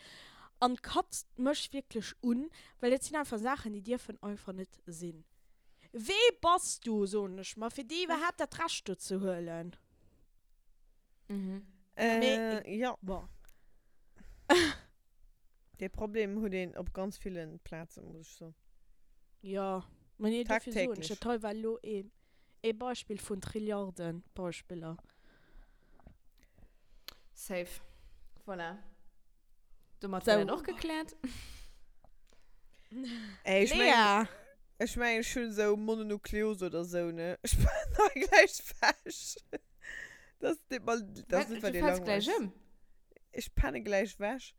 An katzt mech wierklech un, well dat sinn einfach Saachen, déi dierfen einfach net sinn. Wee bass du, soen ech mer, fir dir iwwerhaapt dat Recht do ze huelen? Mhm. Äh, Mee- ja. Bon. Dee Problem huet een op ganz villen Plazen, muss ech soen. Jo, mä nee, dofir soen ech, Tagtäglech. dat hei war elo ee, ee Beispill vun Trilliarden Beispiller. Safe. Voilà. Domat So. wär dat och gekläert. Ey, ech mengen, Lea! ech mengen, ech hunn esou Mononukleose oder sou, ne? Ech falen hei gläich wech. Das deet mer, das Wat, net, well du dir fäls gläich langweileg. ëm? Ech penne gläich wech.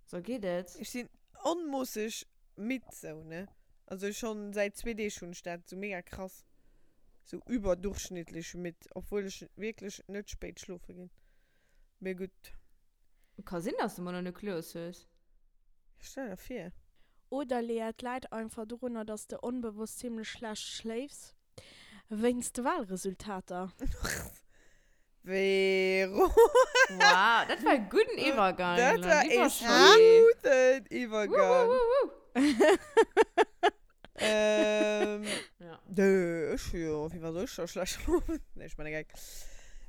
So geet et. Ech sinn onmoosseg midd sou, ne? Also schon säit zwee Deeg hunn ech dat, sou mega krass. Sou überdurchschnittlich midd, obwuel ech wierklech net spéit schlofe ginn. Mee gutt. Ka sinn, dass du Mononukleos hues. Stell der vir. Oder Lea, et läit einfach dorunner, dass de onbewosst zimlech schlecht schléifs. Wéinst de Wahlresultater. Vero. Wow, dat war e gudden Iwwergang. Dat war Lieber e Scholli. gudden Iwwergang. Wuhu, wuhu. Ähm, Ja. Nö, ech jo, wéi war soll ech da schlecht schlofen? Nee, ech man e Geck.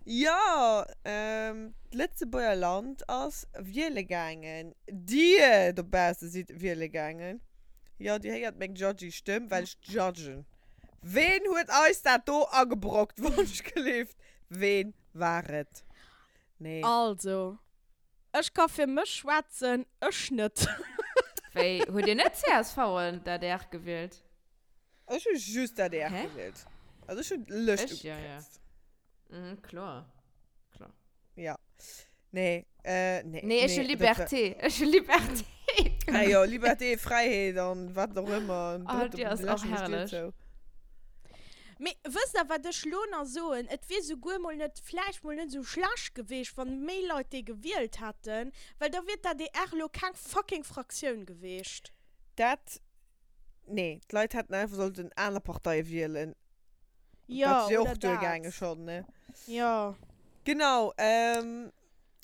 Jo, ähm, d'Lëtzebuerger Land ass wiele gaangen. Dir dobausse sidd wiele gaangen. Jo, dir héiert meng judgy Stëmm, well ech judgen. Ween huet eis dat do agebrockt, wonschgelift? Ween war et? Nee. Also, ech ka fir mech schwätzen, ech net. Wéi, hutt dir net csv an d'ADR gewielt? Ech hu just d'ADR Hä? gewielt. Also ech hunn d'Lëscht Ech, ja, ja. ugekräizt. Mhm, kloer. Kloer. Ja. Nee, äh, nee. Nee, ech hu nee, dat war- Liberté. Ech hu Liberté. Ah jo, Liberté, Fräiheet an wat och ëmmer. Ah, Drëtt déi op ass den och leschten Stier herrlech. zou. Mee wësst der, wat ech lo nach soen? Et wier souguer mol net, vläicht mol net esou schlecht geweecht, wann méi Leit déi gewielt hätten, well da wier d'ADR lo keng fucking Fraktioun geweecht. Dat, nee, d'Leit hätten einfach sollten aner Parteie wielen. Jo, Dat wier oder och duergaange dat. schonn, ne? Jo. Genau, ähm,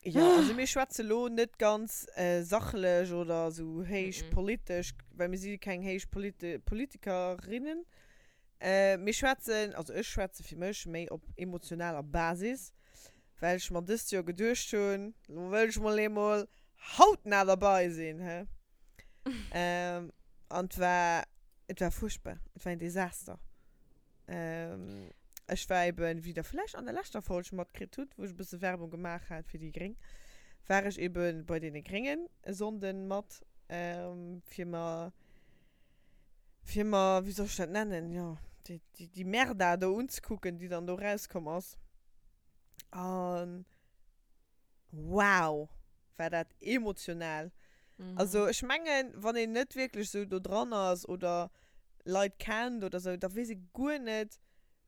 jo, also mir schwätze lo net ganz sachlech oder esou héich politesch, well mir si keng héich Politikerinnen. Mir schwätzen, also ech schwätze fir mech méi op emotionaler Basis, well ech mer dëst Joer geduecht hunn, lo wëll ech mol eemol hautnah derbei sinn, he. An et war, et war fuerchtbar, et war een Desaster. Ech war eben, wéi der vläicht an der leschter Folg matkritt hutt, wou ech e bësse Werbung gemaach hat fir déi Gréng, war ech eben bei deene Gréngen e Sonnden mat, fir mer, fir mer, wéi soll ech dat nennen, jo, déi, déi, déi Merda do unzekucken, déi dann do rauskomm ass. An wow, war dat emotional. Also ech mengen, wann een net wierklech sou do dran ass oder Leit kennt oder sou, da weess ee guer net,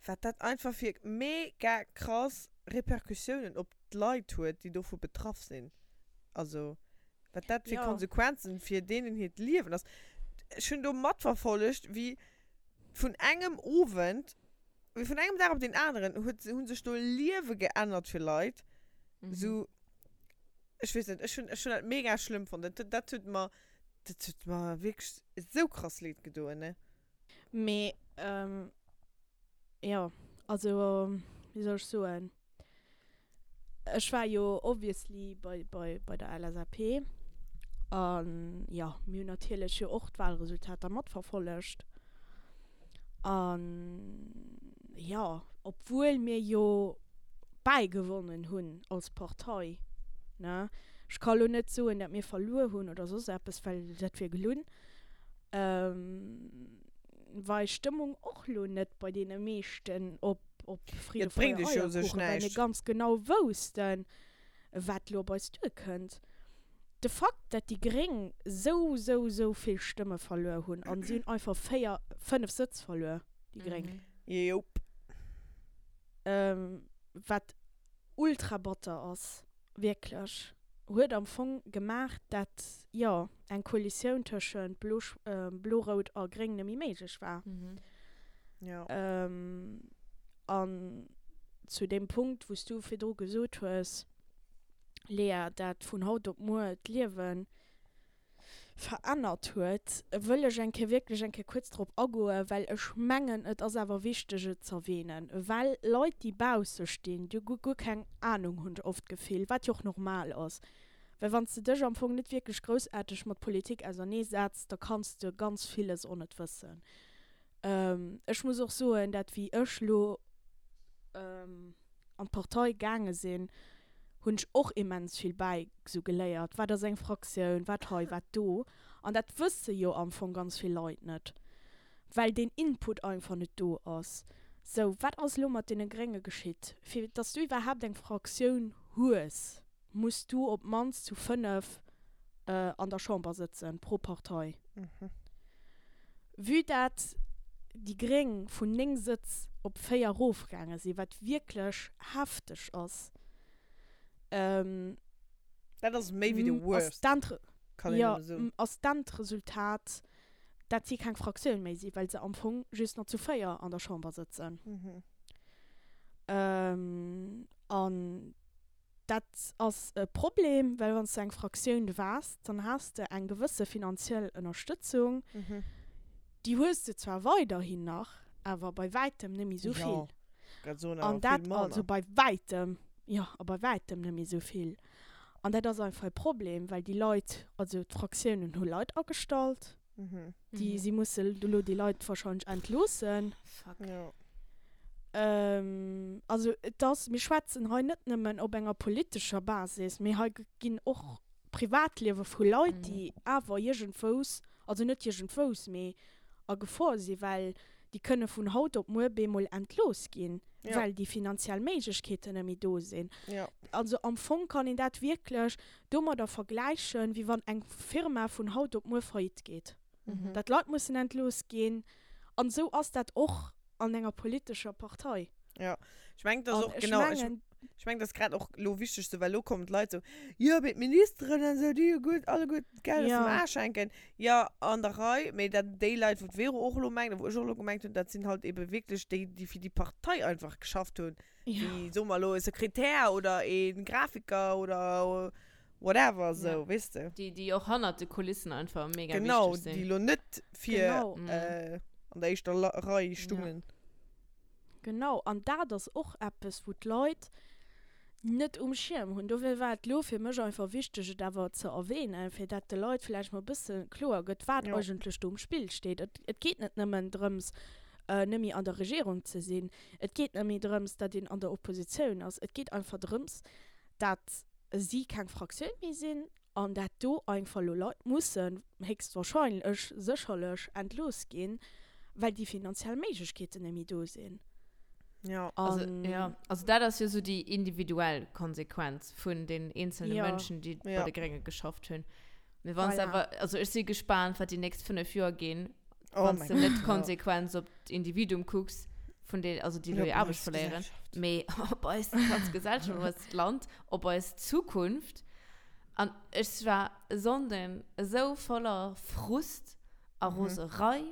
wat dat einfach fir mega krass Repercussiounen op d'Leit huet, déi dovu betraff sinn. Also wat dat fir Ja. Konsequenzen fir deenen hiert Liewen ass. Ech hunn do matverfollegt, wéi vun engem Owend, wéi vun engem Dag op deen aneren huet, hu sech do Liewe geännert fir Leit. Sou, ech weess net, ech hunn, ech hunn dat mega schlëmm fonnt. Dat, dat huet mer, dat huet mer wierklech esou krass leed gedoen, ne. Mee, jo, also, wéi soll ech soen? Ech war jo obviously bei, bei, bei der LSAP. An jo, mir hunn natierlech jo och d'Wahlresultater matverfollegt. An jo, obwuel mir jo bäigewonnen hunn als Partei, ne, ech ka lo net soen, dat mir verluer hunn oder soss eppes, well dat wier gelunn, war eis Stëmmung och lo net bei deene meeschten op op Friede, Et bréngt Freude, iech jo u sech Eierkuchen, well mir näischt. ganz genau woussten, wat lo op eis duerkënnt. De Fakt, dat déi Gréng sou, sou, sou vill Stëmme verluer hunn, an si hunn einfach 4, 5 Sëtz verluer, déi Gréng. Jop. Wat ultra batter ass. Wierklech, huet am Fong gemaach, dat, jo, eng Koalitioun tëschent Blo, Blo-Rout a Gréng net méi méiglech war. Jo. An zu deem Punkt, wou s du virdru gesot hues, Lea, dat vun haut op muer d'Liewen verännert huet, wëll ech eng Kéier wierklech eng Kéier kuerz drop agoen, well ech mengen, et ass awer wichteg et z'erwähnen, well Leit, déi bausse stinn, déi hu guer keng Ahnung, hunn ech oft d'Gefill, wat jo och normal ass, well wann s de dech am Fong net wierklech groussaarteg mat Politik auserneesetz, da kanns de ganz villes och net wëssen. Ech muss och soen, dat wéi ech lo an d'Partei gaange sinn, hunn ech och immens vill bäi sou geléiert, wat ass eng Fraktioun, wat hei, wat do. An dat wësse jo am Fong ganz vill Leit net, well deen Input einfach net do ass. Sou, wat ass elo mat deene Grénge geschitt? Fir datt s du iwwerhaapt eng Fraktioun hues, muss du op d'mannst zu 5 an der Chamber sëtzen, pro Partei. Vue dat déi Gréng vun 9 Sëtz op 4 erofgaange sinn, wat wierklech hefteg ass, Dat ass méi wéi de worst, kann een nëmme soen. ass d'Endresultat, dat si keng Fraktioun méi sinn, well se am Fong just nach zu 4 an der Chamber sëtzen. An. Dat ass e Problem, well wann s de eng Fraktioun waars, dann has de eng gewësse finanziell Ënnerstëtzung. Déi hues de zwar weiderhin nach, awer bei wäitem net méi esou vill. An dat, also bei wäitem, jo, a bei wäitem net méi esou vill. An dat ass einfach e Problem, well déi Leit, also d'Fraktiounen hu Leit agestallt, déi si musse elo déi Leit wahrscheinlech entloossen. Fuck. Jo. Also et ass, mir schwätzen hei net nëmmen op enger politescher Basis, mee hei ginn och Privatliewe vu Leit, déi awer iergendwous, also net iergendwous, mee a Gefor sinn, well déi kënne vun haut op muer bemol entlooss ginn, well déi finanziell Méiglechkeeten net méi do sinn. Also am Fong kann een dat wierklech domadder vergläichen, wéi wann eng Firma vun haut op muer faillite geet, dat Leit mussen entlooss ginn. An esou ass dat och an enger politescher Partei. Jo, ech mengen, dat ass An och, ech genau, ech, mengen. ech mengen, dat ass grad och elo wichteg sou, well elo kommen d'Leit sou, jo, mee d'Ministeren an esou, déi hu gutt, alleguer d'Geld aus dem Ja. Aarsch hänken. Jo, an der Rei, mee dat, déi Leit, wou d'Vero och elo mengt a wou ech och elo gemengt hunn, dat sinn halt ebe wierklech déi, déi fir déi Partei einfach geschafft hunn, Ja. wéi, soe mer elo, e Sekretär oder e Grafiker oder whatever Ja. sou, weess de. Déi, déi och hannert de Kulissen einfach mega Genau, wichteg déi sinn. elo net fir Genau. Mhm. äh, an der éischter La Rei Ja. stungen. Genau, an dat ass och eppes, wou d'Leit net um Schierm hunn. Dofir war et elo fir mech einfach wichteg, et awer ze erwähnen, fir dat de Leit vläicht mol e bësse kloer gëtt, wat Jo. eigentlech do um Spill steet. Et, et geet net nëmmen drëms, net méi an der Regierung ze sinn. Et geet net méi drëms, datt een an der Oppositioun ass. Et geet einfach drëms, dat si keng Fraktioun méi sinn an dat do einfach elo Leit mussen héchstwahrscheinlech, sécherlech entlooss ginn, well déi finanziell Méiglechkeeten net méi do sinn. Ja. Also, An ja, also dat ass jo sou déi individuell Konsequenz vun den eenzelne ja, Mënschen, déi bei Ja. de Grénge geschafft hunn. Mee wann s voilà. awer, also ech si gespaant, wat déi nächst 5 Joer ginn, Oh wann mein s de net Gott, ja. d'Konsequenz op d'Individuum kucks, vun den, also déi Ja, elo op hir Aarbecht eis verléieren, Gesellschaft. mee op eis ganz Gesellschaft, op eist Land, op eis Zukunft. An ech war e Sonnden esou voller Frust a Mhm. Roserei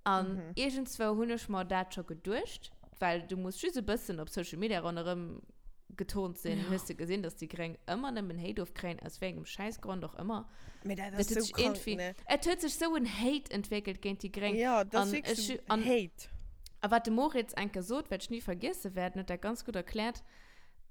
an Mhm. iergendzwou hunn ech mer dat scho geduecht, well du muss just e bëssen op Social Media ronderëm geturnt sinn, Ja. hues de gesinn, dass déi Gréng ëmmer nëmmen Hate ofkréien, aus wéi engem Schäissgrond och ëmmer. Mee dat Dat ass huet sou sech krank, irgendwie, ne? et huet sech sou en Hate entwéckelt géint déi Gréng. Ja, dat ass An wierklech ech, sou an, Hate. a wat de Moritz eng Kéier sot, wat ech ni vergiesse wäert, en huet dat ganz gutt erkläert,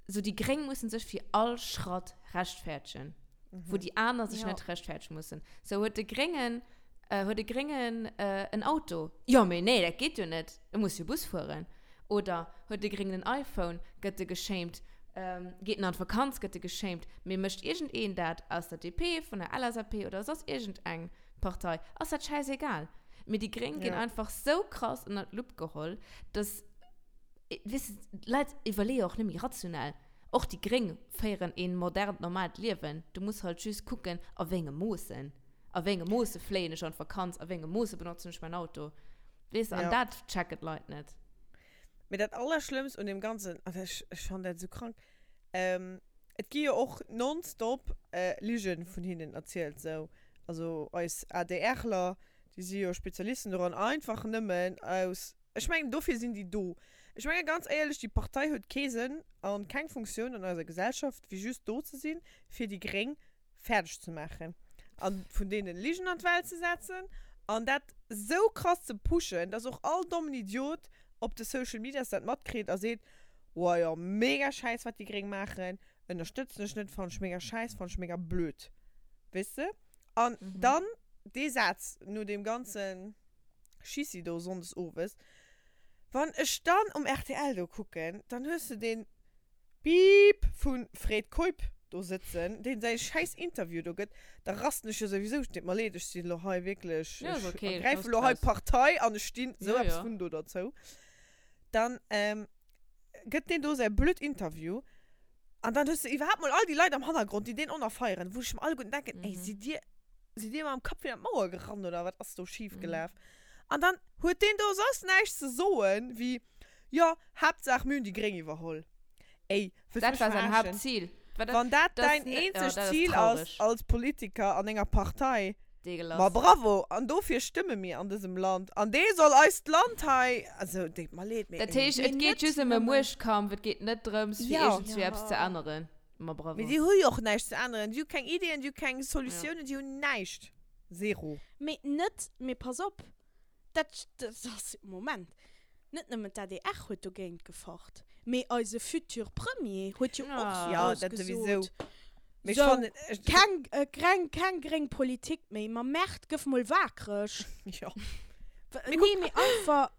sou déi Gréng mussen sech fir all Schratt rechtfäertegen, wou déi aner sech Ja. net rechtfäertegen mussen. Sou huet de Gréngen, huet e Gréngen en Auto? Jo, mee nee, dat geet jo net, e muss jo Bus fueren. Oder huet e Gréngen en iPhone, gëtt e geshamed, geet en an d'Vakanz, gëtt e geshamed. Mee mécht iergendeen dat aus der DP, vun der LSAP oder soss iergendeng Partei, ass dat schäisegal. Mee déi Gréng ginn Ja. einfach sou krass ënnert d'Lupp geholl, dass, weess de, d'Leit iwwerleeë och net méi rationell. Och déi Gréng féieren een modernt, normaalt Liewen. Du muss halt just kucken, a wéi engem Moossen. A wéi engem Moosse fléien ech an d'Vakanz, a wéi engem Moosse benotzen ech mäin Auto. Weess de, an Ja. dat checken d'Leit net. Mee dat Allerschlëmmst un deem Ganzen, an ech, ech fannen dat esou krank, ähm, et gi jo och nonstop äh, Ligen vun hinnen erzielt, sou. Also eis ADRler, déi si jo Spezialisten doran, einfach nëmmen aus, ech mengen dofir sinn déi do. Ech menge ganz éierlech, déi Partei huet kee Sënn an keng Funktioun an eiser Gesellschaft, wéi just do ze sinn, fir déi Gréng fäerdeg ze maachen an vun deenen Ligen an d'Welt ze setzen an dat sou krass ze pushen, dass och all dommen Idiot op de Social Medias dat matkritt a seet, Woah jo, mega schäiss wat déi Gréng maachen, ënnerstëtzen ech net, fannen ech mega schäiss, fannen ech mega blöd. Weess de? An dann dee Saz no deem ganzen Schissi do sonndes owes, wann ech dann um rtl do kucken, dann hues de deen Beep vun Fred Keup do sëtzen, deen säi schäiss Interview do gëtt, da rasten ech jo souwisou, deet mer leed, ech sinn elo hei wierklech, Ja, ech ist okay, ergräifen lass elo hei draus. Partei an ech stinn sou Ja, eppes ja. vun do derzou, dann gëtt deen do säi blöd Interview an dann hues de iwwerhaapt mol all déi Leit am Hannergrond, déi deen onerfeieren, wou ech mer alleguerten denken, ey, sidd dir, sidd dir mam Kapp virun d'Mauer gerannt oder wat ass do schif gelaf? An dann huet deen do soss näischt ze soen wéi, Jo, Haaptsaach mir hunn déi Gréng iwwerholl. Ey, wëlls Dat mech war säin verarschen? Haaptzil. War dat, Wann dat das däin ne, ja, eenzegt dat ass Zil ass traurig. als Politiker an enger Partei, ma Deegelass. bravo! An dofir stëmme mir an dësem Land. An dee soll eist Land hei, also deet mer leed, mee Dat ey. heescht, Mee et geet net just ëm e nëmmen. Muechtkampf, et geet net drëms, fir Ja. iergendswéi eppes ze Ja. änneren. Ma bravo. Mee si hu jo och näischt ze änneren. Si hu keng Ideeën, si hu keng Solutiounen, si hunn näischt. Zero. Mee net, mee pass op, dat, dat ass, Moment, net nëmmen d'ADR huet dogéint gefacht, mee eise futur Premier huet jo och sou Ja, grouss dat souwisou. gesot, Mee ech sou, fannen, ech. keng, greng, keng gréng Politik méi, ma Merde, gëff mol waakreg. Jo. Mee nee, mee einfach,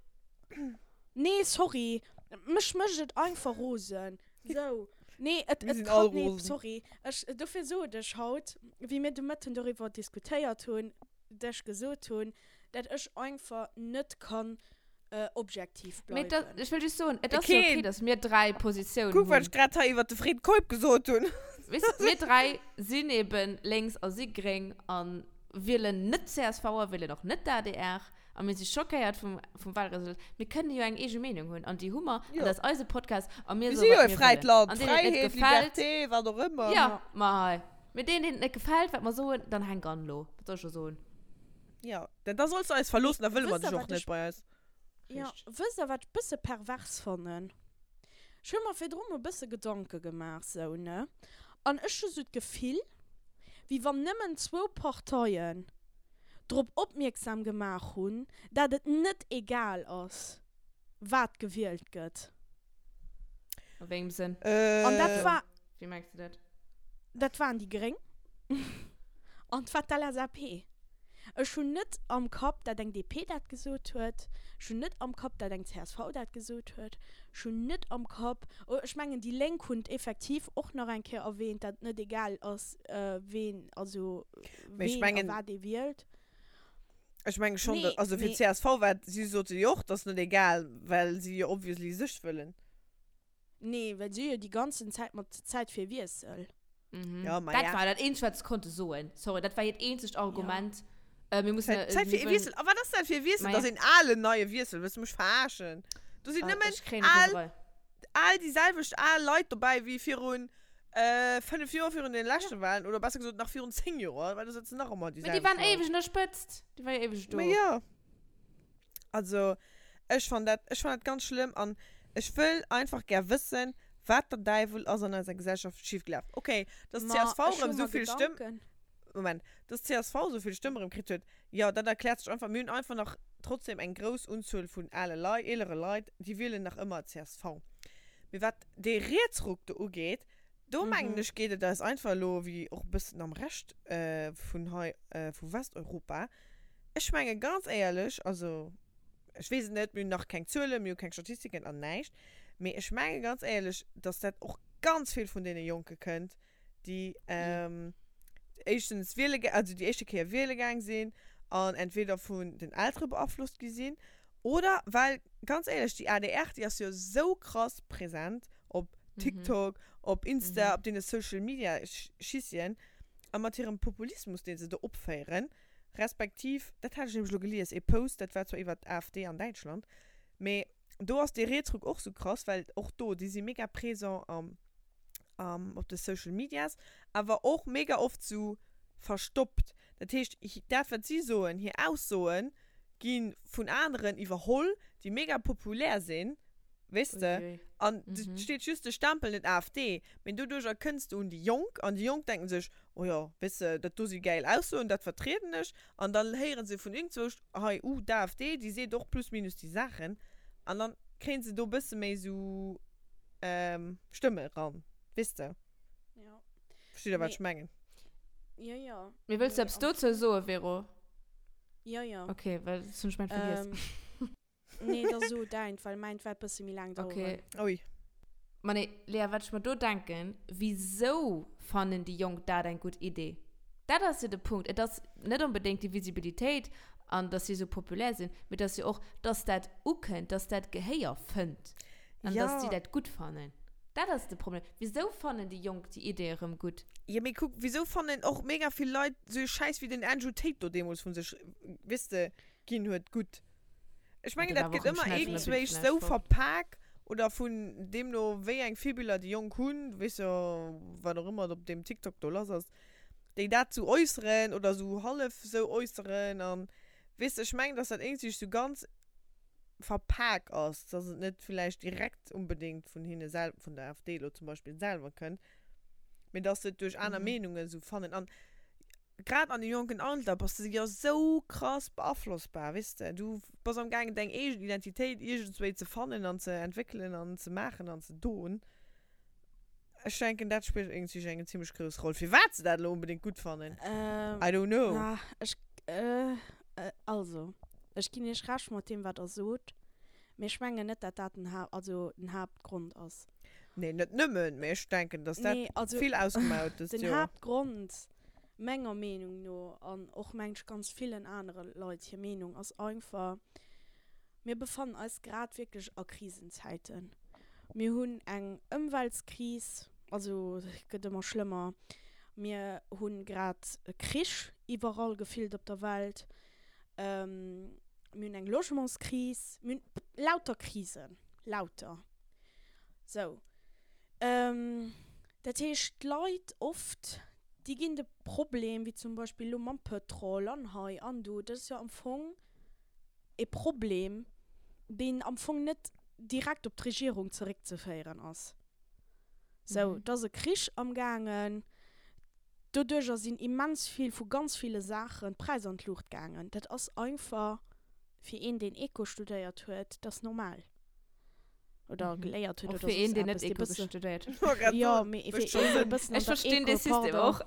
nee, sorry, mech mécht et einfach rosen. Sou, nee, et, Mir et sinn kann, all nee, rosen. sorry, ech, dofir sot ech haut, wéi mir de Mëtten doriwwer diskutéiert hunn, dech gesot hunn, dat ech einfach net kann objektiv Mee da, bleiwen. ech wëll just soen, et ass jo okay, Keen. dass mir 3 Positiounen Kuck, wat hunn. ech grad hei iwwert de Fred Keup gesot hunn. Weess de, mir 3 sinn eben lénks a si gréng a wielen net csv a wielen och net d'ADR a mir si schockéiert vum, vum Wahlresultat. Mir kënnen jo eng eege Meenung hunn an déi hu mer an Jo. dat ass eise Podcast a mir Mir soe si jo wat e mir fräit wëllen. Land. An deenen et net Fräiheet, gefält, Liberté, wat och ëmmer. jo, ma hei. Mee deenen, deenen et net gefält, wat mer soen, dann hänk an elo. Wat soll ech da soen? Ja, denn da solls du eis verloossen, da Mee wëlle mer wësst der, dech och wat net ech bei eis. Ja, Richteg. wësst der, wat ech bësse pervers fannen? Ech hu mer virdru mol bësse Gedanke gemaach, sou, ne? An ech hu sou d'Gefill, wéi wann nëmmen zwou Parteien drop opmierksam gemaach hunn, dat et net egal ass, wat gewielt gëtt. A wéi engem Sënn? An dat Äh. war. Wéi mengs de dat? Dat waren déi Gréng an 't war d'LSAP. Ech hunn net am Kapp, dat eng DP dat gesot huet. Ech hunn net am Kapp, dat eng csv dat gesot huet. Ech hunn net am Kapp, oh, ech mengen, déi Lénk hunn et effektiv och nach eng Kéier erwähnt, dat et net egal ass, ween, also Mee ech ween a mengen. wat ee wielt. Ech menge schonn, Nee, also fir mee. d'CSV war, si sote jo och, dat ass net egal, well si jo obviously sech wëllen. Nee, well si jo déi ganzen Zäit mat Zäit fir Wiessel. Mhm. Ja, ma Dat ja. war dat eenzegt, wat se konnte soen. Sorry, dat war hiert eenzegt Argument. Ja. Äh, mir mussen, Zäit, Zäit mir fir e wëllen- Wiessel. A wat ass dat fir e Wiessel? Ma Dat ja. ass een alen neie Wiessel. Wëlls du mech verarschen? Do sinn Ah, nëmmen ech kréien al, Roserei. al déi selwecht al Leit dobäi wéi virun äh, 5 Joer virun den leschte Wahlen oder besser gesot nach virun 10 Joer, well do sëtzen nach ëmmer déi Mee déi selwecht waren Leit. éiweg un der Spëtzt. Déi war jo éiweg do. Ma ja. Also, ech fann dat, ech fann dat ganz schlëmm an ech wëll einfach gär wëssen, wat der Däiwel ass an eiser Gesellschaft schiefgelaf. Okay, dass Ma csv ech hu erëm mer esou vill Stëmm, Gedanken. Moment, dass csv esou vill Stëmm erëm kritt huet, jo, dat erkläert sech einfach. Mir hunn einfach nach trotzdem eng grouss Unzuel vun ale Leit, eelere Leit, déi wielen nach ëmmer csv. Mee wat dee Rietsruck do ugeet, do mengen ech, geet et eis einfach elo, wéi och e bëssen am Rescht vun hei, vu Westeuropa, Ech menge ganz éierlech, also ech weess et net, mir hunn nach keng Zuelen, mir hu keng Statistiken an näischt, mee ech menge ganz éierlech, datt dat och ganz vill vun deene Jonke kënnt, déi éischtens wiele, also déi éischte Kéier wiele gaang sinn an entweder vun den Eltere beaflosst gi sinn oder well, ganz éierlech, déi adr, déi ass jo esou krass present op TikTok, op Insta, op deene Social Media Schissien a mat hirem Populismus, dee se do opféieren, Respektiv, dat hat ech nämlech elo gelies, ee Post, dat war zwar iwwert d'AfD an Däitschland, mee do ass dee Rietsruck och sou krass, well och do, déi si mega présent am, am, op de Social Medias, awer och mega oft sou verstoppt. Dat heescht, dat wat si soen, hir Aussoe gi vun aneren iwwerholl, déi mega populär sinn, weess de, Uiuiui. an et steet just de Stempel net AfD, mee doduercher kënns de un déi Jonk an déi Jonk denken sech, Oh jo, weess de, dat do si gäil Aussoen, dat vertrieden ech. An dann héiere se vun iergendzwousch, hei, uh, d'AfD, déi seet och plus minus déi Saachen. An dann kréie se do e bësse méi esou Stëmme eran, weess de. Ja. Versteet Der, wat Mee, ech mengen? jo, jo. Mee wëlls du Mee eppes am dozou soen, Vero? Jo, jo. Okay, well dat hunn ech mäint vergiess. Ähm, Nee, da so deint, well mäint wäert bësse méi laang daueren. Okay. Ui. Ma nee, Lea, wat ech mer do denken, wisou fannen déi Jonk dat eng gutt Idee? Dat ass jo de Punkt. Et ass net onbedéngt déi Visibilitéit an dass si esou populär sinn, mee et ass jo och, dass dat ukënnt, dass dat Gehéier fënnt an Ja. dass si dat gutt fannen. Dat ass de Problem. Wisou fannen déi Jonk déi Idee erëm gutt? Jo, mee kuck, wisou fannen och mega vill Leit esou ee Schäiss wéi den Andrew Tate do deemools vu sech, weess de, ginn huet, gutt? Ech mengen, dat gëtt ëmmer iergendzwéich sou verpak oder vun deemno wéi eng Virbiller déi Jonk hunn, du weess jo, wat och ëmmer op deem TikTok do lass ass, déi dat sou äusseren oder sou hallef sou äusseren an weess de, ech mengen, dass dat iergendzwéich sou ganz verpak ass, dass et net villäicht direkt unbedéngt vun hinne sel-, vun der AfD elo zum Beispill selwer kënnt. Mee dass se et duerch aner Meenungen esou fannen. An grad an deem jonken Alter bass de jo esou krass beaflossbar, weess de. Du bass am gaangen deng eegen Identitéit iergendswéi ze fannen an ze entwéckelen an ze maachen an ze doen. Ech denken dat spillt iergendswéi eng zimmlech grouss Roll. Firwat se dat elo onbedéngt gutt fannen, I don't know. Na, ech, also, ech ginn iech Recht mat deem wat der sot, mee ech mengen net dat dat den Ha-, also den Haaptgrond ass. Nee, net nëmmen, mee ech denken, dass dat Nee, also vill ausgemaach huet dëst den Joer. Haaptgrond, menger Meenung no, an och mengen ech ganz villen anere Leit hir Meenung, ass einfach, mir befannen eis grad wierklech a Krisenzäiten. Mir hunn eng Ëmweltskris, also et gëtt ëmmer schlëmmer, mir hu grad e Krich iwwerall gefillt op der Welt, mir hunn eng Logementskris, mir hunn lauter Krisen, lauter. Sou. Dat heescht, d'Leit oft, déi ginn de Problem, wéi zum Beispill elo mam Pëtrol an hei an do, dat ass jo am Fong e Problem, deen am Fong net direkt op d'Regierung zeréckzeféieren ass. Sou, et ass e Krich amgaangen, doduerjer sinn immens vill vu ganz ville Saachen d'Präisser an d'Luucht gaangen. Dat ass einfach fir een, deen Eco studéiert huet, dat ass normal. Oder geléiert huet Och oder fir een, soss deen net eppes, dee Eco bësse. studéiert huet. Wollt grad Jo, soen, mee mécht fir scho een, dee Sënn. bëssen an Ech der verstinn dee Eco, System pardon. och.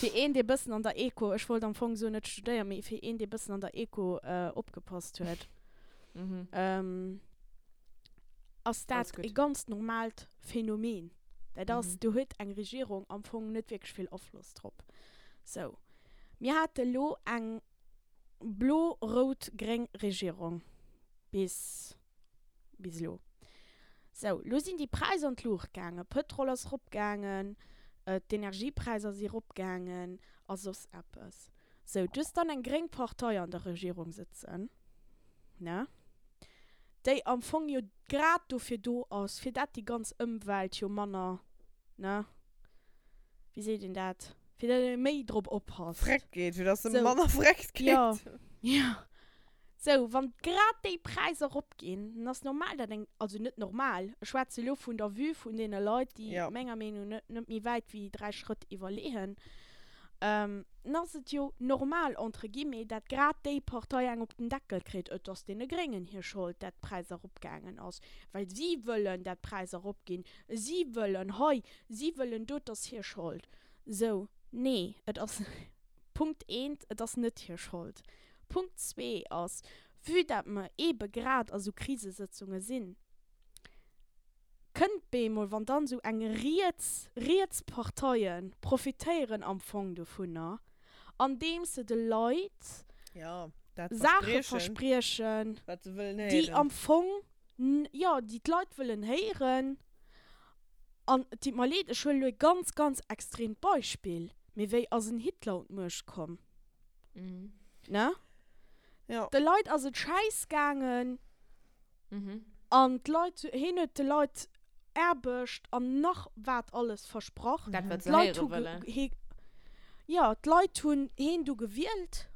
Fir een, dee bëssen an der Eco, ech wollt am Fong soen net studéieren, mee fir een, dee bëssen an der Eco opgepasst huet, ass Alles dat gutt. e ganz normaalt Phänomen. Dat ass, Mhm. do huet eng Regierung am Fong net wierklech vill Afloss drop. Sou, mir hate lo eng blo-rout-gréng Regierung bis bis elo. Sou, lo sinn déi Präisser an d'Luucht gaangen, Pëtrol ass eropgaangen, d'Energiepräisser si eropgaangen a soss eppes. Sou, du hues dann eng gréng Partei an der Regierung sëtzen, ne, déi am Fong jo grad dofir do ass, fir dat déi ganz Ëmwelt jo manner, ne, wéi seet een dat, fir dat ee méi drop oppasst. Vreckt geet, fir dass se Sou, manner vreckt geet. jo, jo. Sou, wann grad déi Präisser eropginn, dann ass normal, dat eng, also net normal, ech schwätze elo vun der Vue vun deene Leit, déi Ja. menger Meenung no net méi wäit wéi 3 Schrëtt iwwerleeën, dann ass et jo normal, entre guillemets, dat grad déi Partei eng op den Deckel kritt, et ass deene Gréngen hir Schold, dat d'Präisser eropgaangen ass, well si wëllen, dat d'Präisser eropginn, si wëllen hei, si wëllen do, et ass hir Schold. Sou, nee, et ass, Punkt eent, et ass net hir Schold. Punkt zwee ass, vue dat mer eebe grad a sou Krisesëtzunge sinn, kënnt bemol, wann dann esou eng riets, riets Parteie profitéieren am Fong dovunner, andeems se de Leit Ja, dat Saache verspriechen, verspriechen, wat se wëllen déi héieren. am Fong, jo, déi d'Leit wëllen héieren. An et deet mer leed, ech huelen elo e ganz, ganz extreemt Beispill, mee wéi ass en Hitler un d'Muecht komm? Ne? Ja. De Leit ass et schäiss gaangen Mhm. an d'Leit, hien huet de Leit Aarbecht an nach wat alles versprach. Dat, wat se D'Leit héiere hu wëllen. hie, jo, d'Leit hunn hien du gewielt,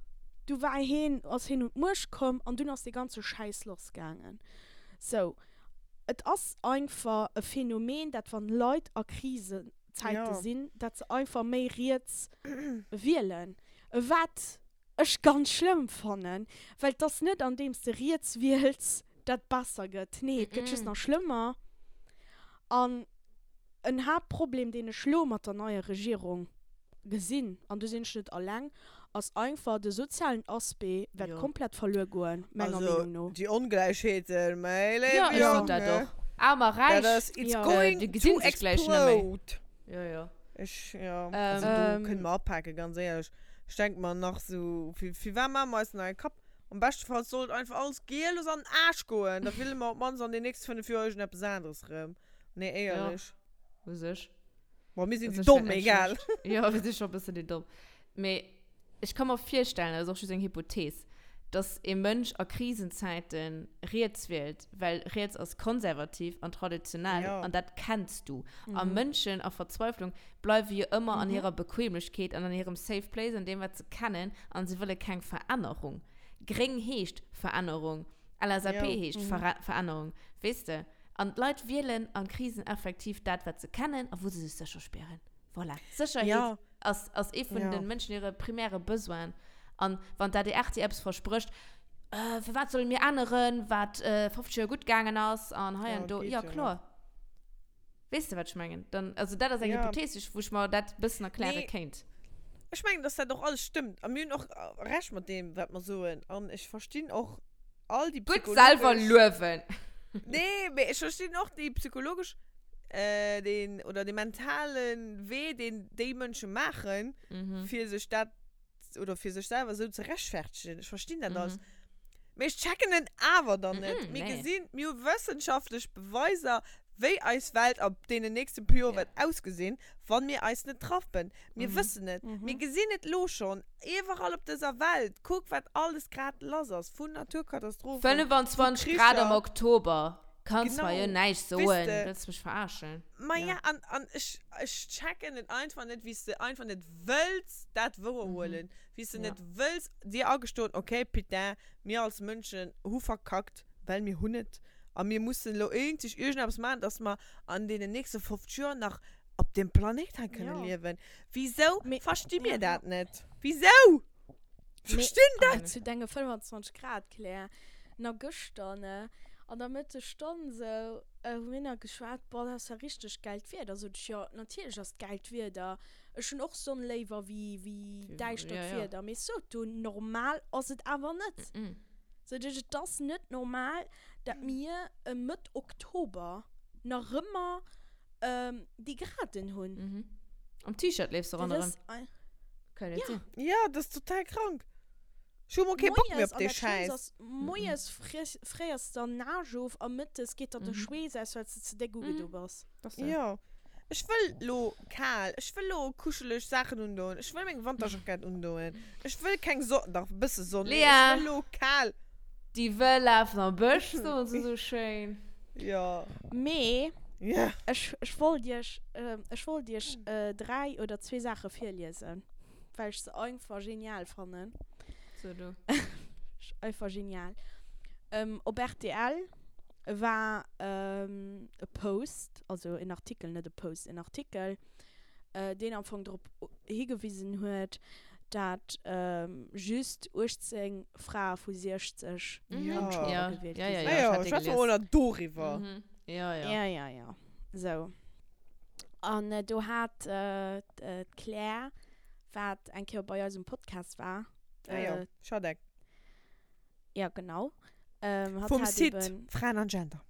du war hien, ass hien un d'Muecht komm an dunn ass dee ganze Schäiss lassgaangen. Sou, et ass einfach e Phänomen, dat wann Leit a Krisenzäite Ja. sinn, dat se einfach méi riets wielen. Wat ech ganz schlëmm fannen, well et ass net andeems de riets wiels, dat besser gëtt. Nee, et gëtt just nach schlëmmer. An en Haaptproblem, deen ech lo mat der neier Regierung gesinn, an do sinn ech net alleng, ass einfach de sozialen Aspect wäert komplett verluer goen, menger Also, Meenung no. déi Ongläichheeten, mäi léiwe Jo, ech sot dat Jonge, och. Aarm a dat Räich, ass, it's Jo. going déi to gesinn sech gläich net méi. explode. Jo, jo. Ech, jo, also do kënne mer apaken, ganz éierlech. Ech denk mer nach sou, fir, firwat maache mer eis denn hei e Kapp? Am beschte Fall soll et einfach alles geellos an den Aarsch goen, da wille mer op d'mannst an den nächste 5 Joer iergendeppes aneres erëm. Nee, éierlech. Jo, u sech. Bon, mir sinn U déi sech Domm, wär net egal. schlecht. Jo, mir si scho e bëssen déi Domm. Mee ech ka mer virstellen, dat ass och just eng Hypothees, dass ee Mënsch a Krisenzäite riets wielt, well riets ass konservativ an traditionell Ja. an dat kenns du. A Mënschen a Verzweiflung bleiwe jo ëmmer an hirer Bequemlechkeet an an hirem safe place, an deem wat se kennen an se wëlle keng Verännerung. Gréng heescht Verännerung, LSAP Ja. heescht Verännerung, weess de? An d'Leit wielen an Krisen effektiv dat, wat se kennen a wou se sech sécher spieren. Voilà. Sécherheet Ja. ass, ass ee vun Ja. de Mënschen hire primäre Besoinen. An wann d'ADR dir eppes versprécht, äh, firwat solle mir änneren, wat äh, 50 Joer gutt gaangen ass an hei Ja, an do. geet Ja, jo net. kloer. Weess de, wat ech mengen? Dann, also dat ass eng Ja. Hypothees, wou ech mer dat e bëssen erkläre Nee. kéint. Ech mengen, dass dat och alles stëmmt. A mir hunn och Recht mat deem, wat mer soen. An ech verstinn och all déi Gutt selwer psychologesch. luewen. Nee, mee ech verstinn och déi psychologesch, äh, deen, oder dee mentale Wee, deen déi Mënsche maachen, Mhm. fir sech dat, oder fir sech selwer esou ze rechtfertegen. Ech verstinn dat alles. Mhm. Mee ech checken en awer dann net. Mhm, Mir nee. gesinn, mir hu wëssenschaftlech Beweiser, wéi eis Welt ab deenen nächste puer Joer Ja. wäert ausgesinn, wann mir eis net rappen. Mir Mhm. wëssen et. Mhm. Mir gesinn et lo schonn, iwwerall op dëser Welt. Kuck, wat alles grad lass ass, vun Naturkatastrophen, vu 25 Grad am Kricher. Oktober. Kanns mer jo Genau. näischt Weess soen. de. Wëlls mech verarschen? Ma Ja. ja, an, an ech, ech checken et einfach net, wéi s de einfach net wëlls dat wouerhuelen. Wéi s de Ja. net wëlls dir agestoen, okay, putain, mir als Mënschen hu verkackt, well mir hunn et. A mir mussen elo eenzeg iergendeppes maachen, dass mer an deenen nächste 50 Joer nach op deem Planéit hei kënne Ja. liewen. Wisou Mee- versti mir ja, dat net? Wisou? Mee- Verstinn dat! Zu denge 25 Grad, Claire. Na gëschter, ne, an der Mëttesstonn sou, hu mir nach geschwat, boah, dat ass ja richteg gäilt Wieder. Sot ech, jo, natierlech ass et gäilt Wieder. Ech hunn och Sonn léiwer wéi, wéi däischtert Ja, ja. Wieder. Mee sot du, normal ass et awer net. Mhm. Sot ech, et ass net normal, dat mir Mëtt Oktober nach ëmmer déi Graden hunn. Mhm. Am T-Shirt leefs du Dat ronderëm. ass ein- Kann net Ja. sinn. Ja, dat ass total krank. Ech hu mol kee Bock méi Moies, op an dee dat Schlëmmst Schäiss. ass, moies fries, fréiers der Nage of a mëttes geet der de Mhm. Schweess aus, well s de ze déck ugedo bass. Das so. Ja. Ech wëll lo kal, ech wëll lo kuscheleg Saachen undoen, ech wëll meng Wanterjackett undoen, ech wëll keng Sonn, dach e bësse Sonn, mee ech Lea! wëll lo kal. Déi wëll lafen am Bësch, soen se sou schéin. Ja. Mee Ja. ech, ech wollt iech, ech wollt iech 3 oder zwee Saache virliesen, well ech se einfach genial fannen. So du. Einfach genial. Op rtl war e Post, also en Artikel, net e Post, en Artikel, deen am Fong drop higewisen huet, dat just 18 Frae vu 60 Mhm. an Ja. d'Chamber Ja, gewielt ja, gi ja, sinn. ja, Ah ich ja, hat dee schwätze mer gelies. mol nach doriwwer. Mhm. Ja, ja. Ja, ja, ja. Sou. An do hat d'Claire, wat eng Kéier bei eis um Podcast war, Ah ja, Schadek. ja genau, ähm, hatt Vum hat Site eben, Fraen an Gender.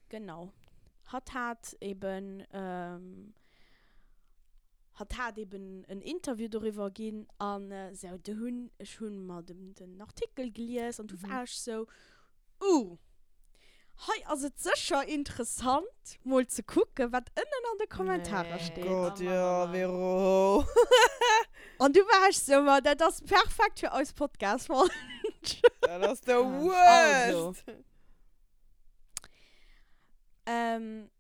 genau, hatt hat eben, ähm, Hatt hat eben en Interview doriwwer ginn an sou, du hunn, ech hunn mer den, den Artikel gelies an du war ech sou, uh, hei ass et sécher interessant mol ze kucken, wat ënnen an de Kommentarer Nee. steet. Gott, Oh Mann, jo, oh Mann. Vero. An du war ech sou, ma dat ass perfekt fir eis Podcast-Folg. Dat ass the Also. worst. Ähm,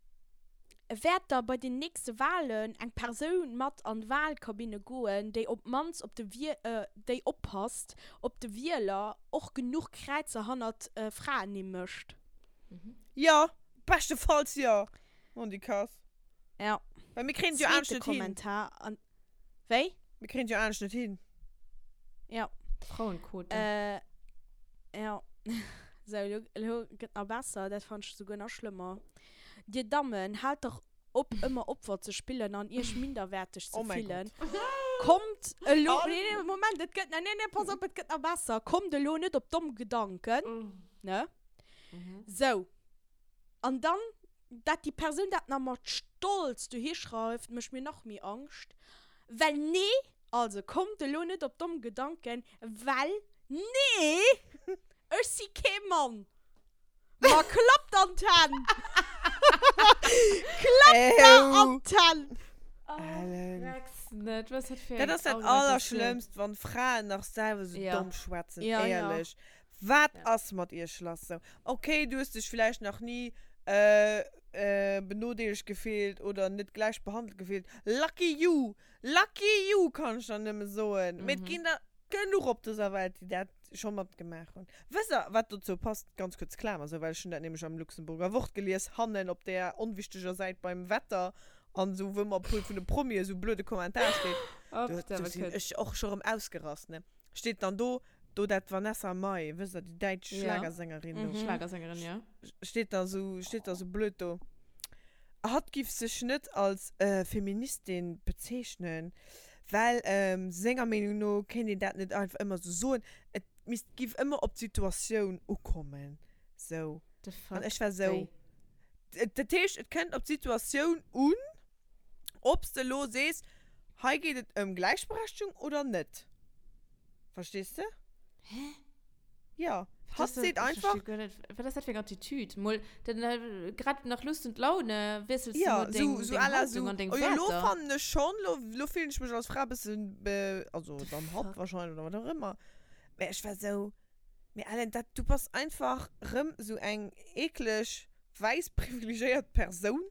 Wäert da bei den nächste Walen eng Persoun mat an d'Walkabinne goen, déi op d'mannst op de déi oppasst, ob de Wieler och genuch Kräizer hannert Fraennimm mécht? Jo, beschtefalls jo, Mondikass. Ja. Well mir kréien et jo anescht Zweete net hin. Kommentar an. Wéi? Mir kréien et jo anescht net hin. Ja. Frauenquote. Äh, ja. Sou, elo, elo gëtt nach besser, dat fand ech souguer nach schlëmmer. Dir Dammen, haalt dach op ëmmer Opfer ze spillen an iech minderwäerteg ze Oh mäi fillen. Gott. Kommt elo, An? nee, nee, Moment, et gëtt, nee, nee, pass op, et gëtt nach besser. Kommt elo net op domm Gedanken, ne? Sou. An dann, dat déi Persoun dat nach mat Stolz dohi schreift, mécht mir nach méi Angscht. Well nee, also kommt elo net op domm Gedanken, well nee, ech si kee Mann. Ma klappt an d'Hänn! Klappt der an d'Hänn! Ellen. Rex net, was dat fir Dat eng ass dat Argumentatioun. Allerschlëmmst, wann Fraen nach selwer sou Ja. domm schwätzen, Ja, ja. éierlech. Wat Ja. ass mat iech lass sou? Okay, du hues dech villäicht nach ni äh, äh, benodeelegt gefillt oder net gläich behandelt gefillt. Lucky you! Lucky you, kann ech der nëmme soen. Mee et Mhm. ginn der genuch op dëser Welt, déi dat. scho matgemaach hunn. Wësst der, wat dozou passt? Ganz kuerz Klamer, sou, well ech hunn dat nämlech am Luxemburger Wort gelies, hannen op där onwichteger Säit beim Wetter an esou, wou ëmmer puer vun de Promien esou blöde Kommentar steet. Do, do sinn ech och scho rëm ausgerast, ne? Steet dann do, do dat Vanessa Mai, wësst der, déi däitsch Schlagersängerin do. Schlagersängerin, jo. Steet da sou, steet da sou blöd do. Hatt giff sech net als Feministin bezeechnen, well senger Meenung no kéint een dat net einfach ëmmer sou soen, et misst, giff ëmmer op d'Situatioun ukommen. Sou. The fuck? An ech war sou, Wéi? Dat heescht, et kënnt op d'Situatioun un, ob s de elo sees, hei geet et ëm Gläichberechtegung oder net. Verstees de? Hä? Ja, hatt seet einfach. Ech versti guer net, wat ass dat fir eng Attitüd? Mol dann grad nach Lust und Laune wiessels du Ja, mol deng, sou, sou deng à la Haltung sou, an deng oh jo, lo Wäerter. fannen ech schonn, lo, lo fillen ech mech als Fra e bëssen, be, also The dann hatt fuck? wahrscheinlech oder wat och ëmmer. Mä ech war sou, mee Ellen, dat, du bass einfach rëm sou eng eekleg, wäiss, privilegéiert Persoun,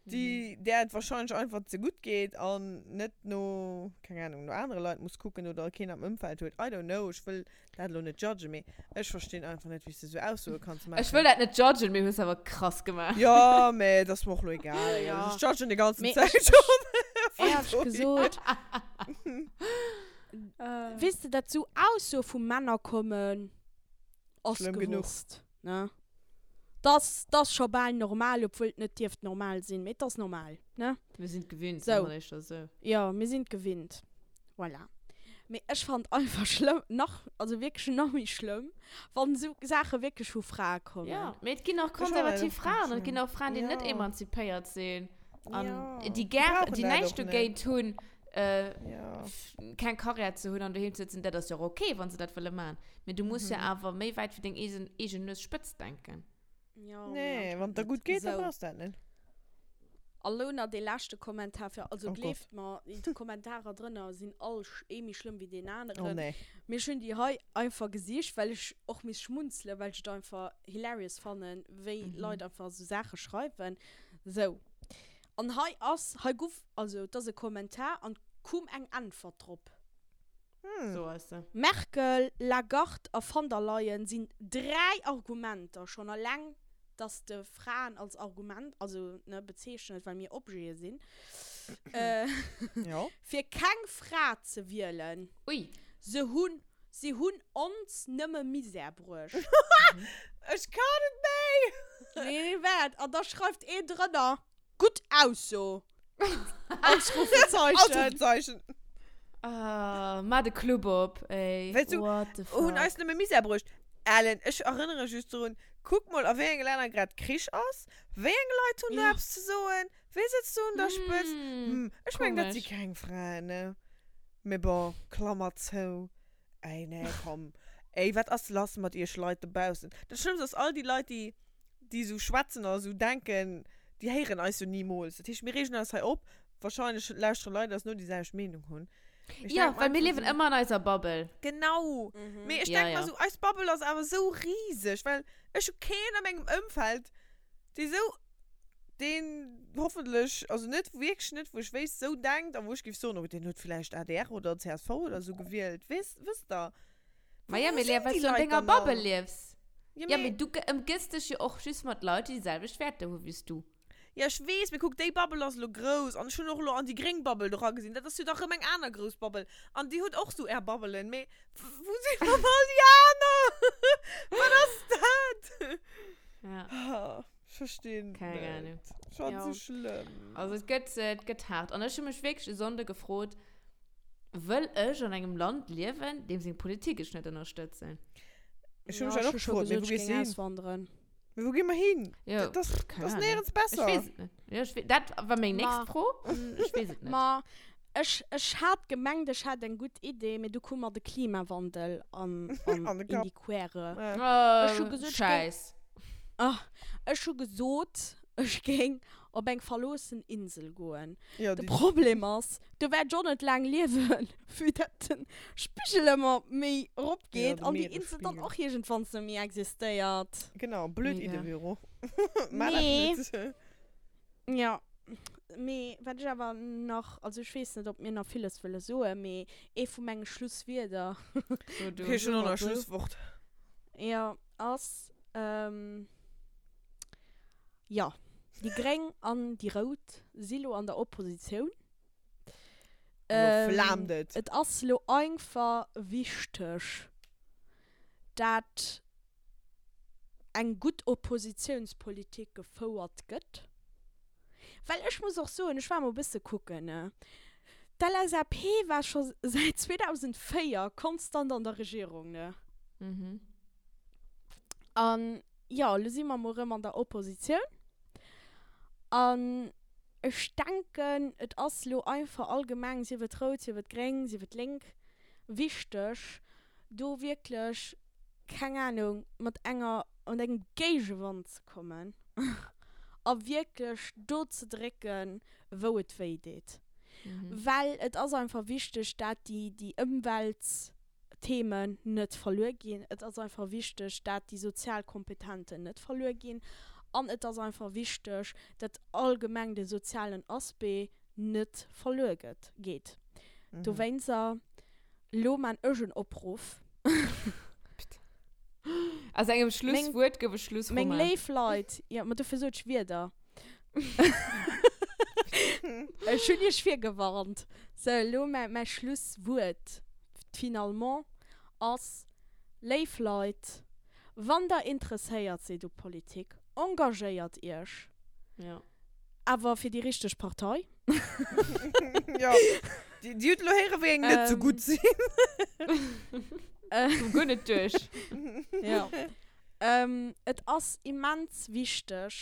déi, där et wahrscheinlech einfach ze gutt geet an net no, keng Ahnung, no anere Leit muss kucken oder keen am Ëmfeld huet, I don't know, ech wëll dat elo net judgen, mee ech verstinn einfach net, wéi s de esou Aussoe kanns Ech maachen. wëll dat net judgen, mee hues awer krass gemaach. Jo, mee et ass mer och elo egal, Ja. ech judgen déi ganzen Mee Zäit ech, schonn. éierlech gesot, weess de, dat esou Aussoe vu Männer kommen, ass Schlëmm genuch. gewosst, ne? Dass dass scho bal normal, obwuel et net dierft normal sinn, mee et ass normal, ne? Mir sinn et gewinnt, Sou. soe mer éischter sou. Jo, mir sinn et gewinnt. Voilà. Mee ech fannt einfach schlëmm, nach, also wierklech nach méi schlëmm, wann esou Saache wierklech vu Frae kommen. Jo, mee et ginn och Ech fannen konservativ et och Fraen ganz an et ginn schlëmm. och Fraen, déi net Jo. emanzipéiert sinn an Jo. déi Déi gär, brauchen déi dat näischt och net. dogéint hunn, Jo. keng Karriär ze hunn an doheem ze sëtzen. Dat ass jo och ok, wa se dat wëlle maachen. Mee du muss jo awer méi wäit wéi deng eegen, eegen Nues spëtz denken. Jo, mee Nee, wann et der anscheinend gutt net. geet, da Sou. brauchs de dat net. A lo nach dee leschte Kommentar fir, also Oh gleeft Gott. mer, déi Kommentarer drënner sinn all ee méi schlëmm wéi deen Oh aneren. nee. Mee ech hunn déi hei einfach gesicht, well ech och misst schmunzelen, well ech et einfach hilarious fannen, wéi Leit einfach esou Saache schreiwen. Sou. An hei ass, hei guff, also et ass e Kommentar an kum eng Äntwert drop. So ass se. Merkel, Lagarde a van der Leyen sinn 3 Argumenter, schonn alleng dass de Fraen als Argument, also ne, bezeechnet, well mir Objete sinn, Jo. fir keng Fra ze wielen. Ui. Se hunn, si hunn ons nëmme Misär bruecht. Ech kann net méi! Nee, waart, an da schreift een drënner, Gutt Ausso! Ausrufezeichen! Ausrufezeichen! Ah, maa de Club op, ey. Weißt du, What the fuck? Hunn eis nëmme Misär bruecht. Ellen, ech erënnere just drun, kuck mol a wéi enge Länner grad Krich ass. Wéi eng Leit hunn do Ja. eppes ze soen? Wee sëtzt do un der Spëtzt? Mm, Hm, ech mengen, dat si komisch. keng Fraen, ne? Mee bon, Klammer zou. Ey, nee, komm. Ey, wat ass lass mat iech Leit dobaussen? Dat Schlëmmst ass, all déi Leit, déi, déi esou schwätzen a esou denken, déi héieren eis jo nimools. Dat heescht, mir reegen eis hei op. Wahrscheinlech lauschtere Leit eis no, déi selwecht Meenung hunn. Mee ech Ja, denk mer well mir einfach liewen esou, ëmmer an eiser Bubble. Genau. Mee ech Ja, denk mer ja. esou, eis Bubble ass awer esou riseg, well ech hu keen a mengem Ëmfeld, dee esou, deen hoffentlech, also net, wierklech net, wou ech wéisst, esou denkt a wou ech géif soen, oh, deen huet vläicht adr oder csv oder esou gewielt. Weess, wësst Der? Ma ja, Wou mee sinn Lea, well déi s du an Leit denger dann all? Bubble liefs. Ja, Ja, mee. mee du ëmgëss dech jo och just mat Leit, déi déi selwecht Wäerter hu wéi s du. Ja, ech weess, mee kuck, déi Bubble ass elo grouss an ech hunn och elo an déi gréng Bubble do eragesinn. Dat ass jo da rëm eng aner grouss Bubble an déi huet och sou är Bubbelen. Mee wou sinn dann all déi aner? Wat ass dat? Ja. Ah, ech verstinn Keng net. Ahnung. Ech fand Ja. se schlëmm. Also et gëtt, et gëtt haart. An ech hu mech wierklech e Sonnde gefrot, Wëll ech an engem Land liewen, deem seng Politik ech net ënnerstëtzen? Ech hu mech dat och gefrot, mee wou gees du hin? Auswanderen. Mee wou gi mer hin? Jo, Dat ass, pff, keng dat ass Ahnung. néierens Ech besser. weess et net. Jo, ech wee, dat war meng Ma. nächst Fro. Ech weess et net. Ma ech, ech hat gemengt, ech hätt eng gutt Idee, mee du koum mer de Klimawandel an, an, An de in Kapp. die Quere. Ja. Ech hu Oh, gesot, ech géing, Scheiss. ah, ech hu gesot, ech géing op eng verloossen Insel goen. Ja, De déi. Problem ass, do wäert ech och net laang liewen, vue dat de Spigel ëmmer méi erop Ja, geet de an déi Insel dann Meeresspigel. och iergendwann net méi existéiert. Genau, blöd Mega. Idee, Vero. Maach dat Nee. net. Ja. Mee wat ech awer nach, also ech weess net, ob mir nach villes wëlle soen, mee ee vu menge Schlusswierder, So du. Okay, ech hunn och nach e Soe mer sou. Schlusswort. jo, ass, jo, déi Gréng an déi Rout si lo an der Oppositioun. Lo flaamt et. Et ass lo einfach wichteg, dat eng gutt Oppositionspolitik gefouert gëtt. Well ech muss och soen, ech war mol e bësse kucken, ne, d'LSAP war scho säit 2004 konstant an der Regierung, ne. An jo, elo si mer mol erëm an der Oppositioun. An ech denken, et ass elo einfach allgemeng, sief et rout, sief et gréng, sief et lénk, wichteg, do wierklech, keng Ahnung, mat enger, mat engem Géigewand ze kommen a wierklech do ze drécken, wou et wéi deet. Well et ass einfach wichteg, dat déi, déi Ëmweltthemen net verluer ginn. Et ass einfach wichteg, dat déi sozial Kompetenten net verluer ginn. An et ass einfach wichteg, dat allgemeng de sozialen Aspect net verluer gëtt, geet. Dowéinster. Lo man ech en Opruff. Aus engem Schlusswuert gouf e Schlussroman. Meng léif Leit, jo, ma dofir sot ech Wierder. Ech hunn iech virgewarnt. Sou, elo mäi Schlusswuert finalement ass, Léif Leit, wann der interesséiert sidd u Politik, engagéiert iech. Jo. Awer fir déi richteg Partei. Jo, déi, déi huet elo héieren, wéi eng net sou gutt sinn. Koum guer net duerch. Jo. Et ass immens wichteg,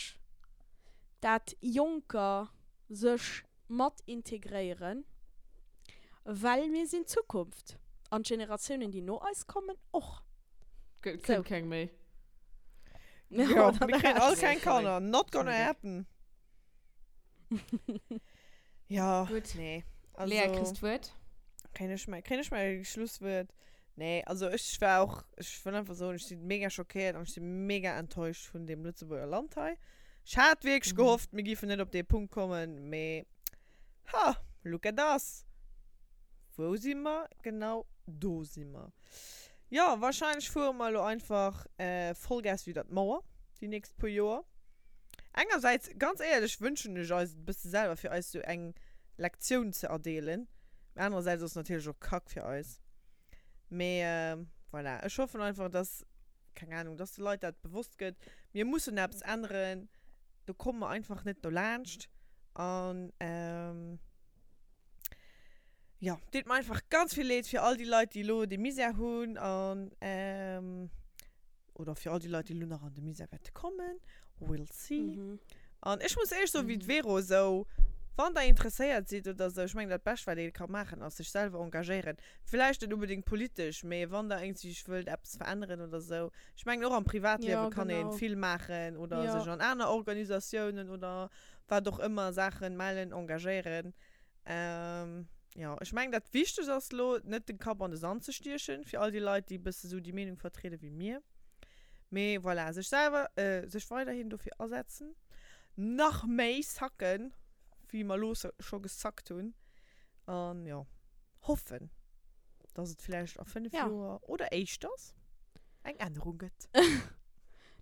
dat Jonker sech mat integréieren, well mir sinn d'Zukunft an d'Generatiounen, déi no eis kommen, och. Kënnt keng méi. Ja, mir kréien all keng Kanner. Not gonna happen. Ja, Gutt. nee. Lea, Also, kriss d'Wuert. kréien ech mäi, kréien ech mäi Schlusswuert? Nee, also ech war och, ech wëll einfach soen, ech si mega schockéiert an ech si mega enttäuscht vun deem Lëtzebuerger Land hei. Ech hat wierklech gehofft, mir géifen net op dee Punkt kommen, mee ha, look at us. Wou si mer? Genau do si mer. Jo, wahrscheinlech fuere mer elo einfach Vollgas widder d'Mauer déi nächst puer Joer. Engersäits, ganz éierlech, wënschen ech eis et e bësse selwer, fir eis sou eng Lektioun ze erdeelen. Mee anerersäits ass et natierlech och Kack fir eis. Mee voilà, ech hoffen einfach, dass, keng Ahnung, dass de Leit dat bewosst gëtt, mir mussen eppes änneren, do komme mer einfach net dolaanscht. An. Jo, deet mer einfach ganz vill Leed fir all déi Leit, déi elo dee Misär hunn an, oder fir all déi Leit, déi elo nach an de Misär wäerte kommen. We'll see. An ech muss éierlech soen, wéi d'Vero esou, wann der interesséiert sidd oder esou, ech mengen dat Bescht wat ee ka maachen ass sech selwer engagéieren. Villäicht net unbedéngt politesch, mee wann der iergendwéi wëllt eppes veränneren oder esou. Ech mengen och am Privatliewe kann ee vill maachen oder sech an aner Organisatiounen oder wat och ëmmer Saachen mellen, engagéieren. Ähm, jo, ech mengen, dat Wichtegst ass elo, net den Kapp an de Sand ze stiechen, fir all déi Leit, déi e bësse sou déi Meenung vertriede wéi mir. Mee voilà, sech selwer, sech weiderhin dofir asetzen, nach méi sacken, wéi mer elo scho gesackt hunn. An jo, hoffen, dass et vläicht a 5 Joer oder éischters eng Ännerung gëtt.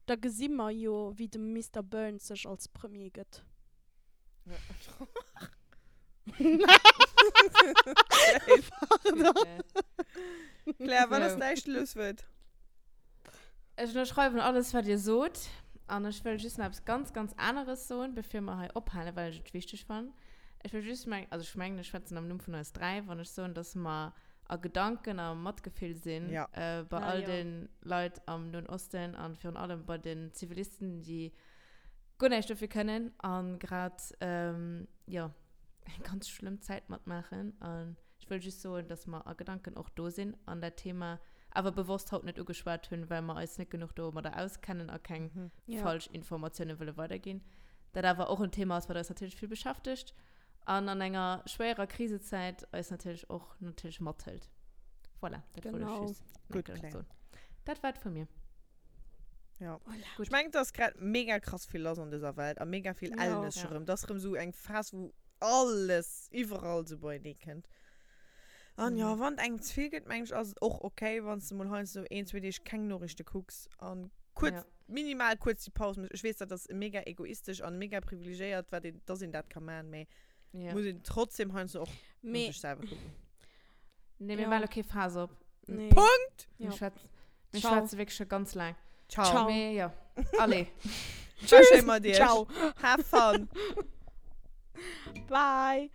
Da gesi mer jo, wéi de Mister Burns sech als Premier gëtt. Claire, wat ass däi Schlusswuert? Ech ënnerschreiwen alles, wat Dir sot. An ech wëll just nach eppes ganz, ganz aneres soen, bevir mer hei ophalen, well ech et wichteg fannen. Ech wëll just meng, also ech mengen, ech schwätzen am Numm vun eis 3, wann ech soen, dass mer a Gedanken a Matgefill sinn Ja. bei Ah, all jo. de Leit am Noen Osten an virun allem bei den Zivilisten, déi guer näischt dofir kënnen an grad jo eng ganz schlëmm Zäit matmaachen. An ech wëll just soen, dass mer a Gedanken och do sinn an dat Thema awer bewosst haut net ugeschwat hunn, well mer eis net genuch domadder auskennen a keng falsch Informatioune wëlle weiderginn. Dat awer och en Thema ass, wat eis natierlech vill beschäftegt an an enger schwéierer Krisezäit eis natierlech och natierlech mathëlt. Voilà, dat wollt ech just Gutt, Claire. soen. Dat war et vu mir. Ja. Voilà. Ech mengen, et ass grad mega krass vill lass an dëser Welt a mega vill Ja. Ellnes Ja. erëm. Et ass erëm esou eng Phas, wou. Alles iwwerall sou beienee kënnt. An jo, Mhm. wann et engem ze vill gëtt, mengen ech, ass et och okay, wann s de mol heiansdo een, zwee Deeg keng Noriichte kucks an kuerz, Ja. minimal kuerz déi Paus méchs. Ech weess, dat ass mega egoistesch an mega privilegéiert, wat een, dass een dat ka man, mee Ja. muss een trotzdem heiansdo och no Mee, sech selwer kucken. Nee, mir Ja. maachen elo kee Faass op. nee. Punkt! Mir Ja. schwätzen, mir Ciao. schwätze wierklech scho ganz laang. Ciao. Ciao. Mee jo, allez. Tschüss. Mat iech. Ciao. Have fun. Bye.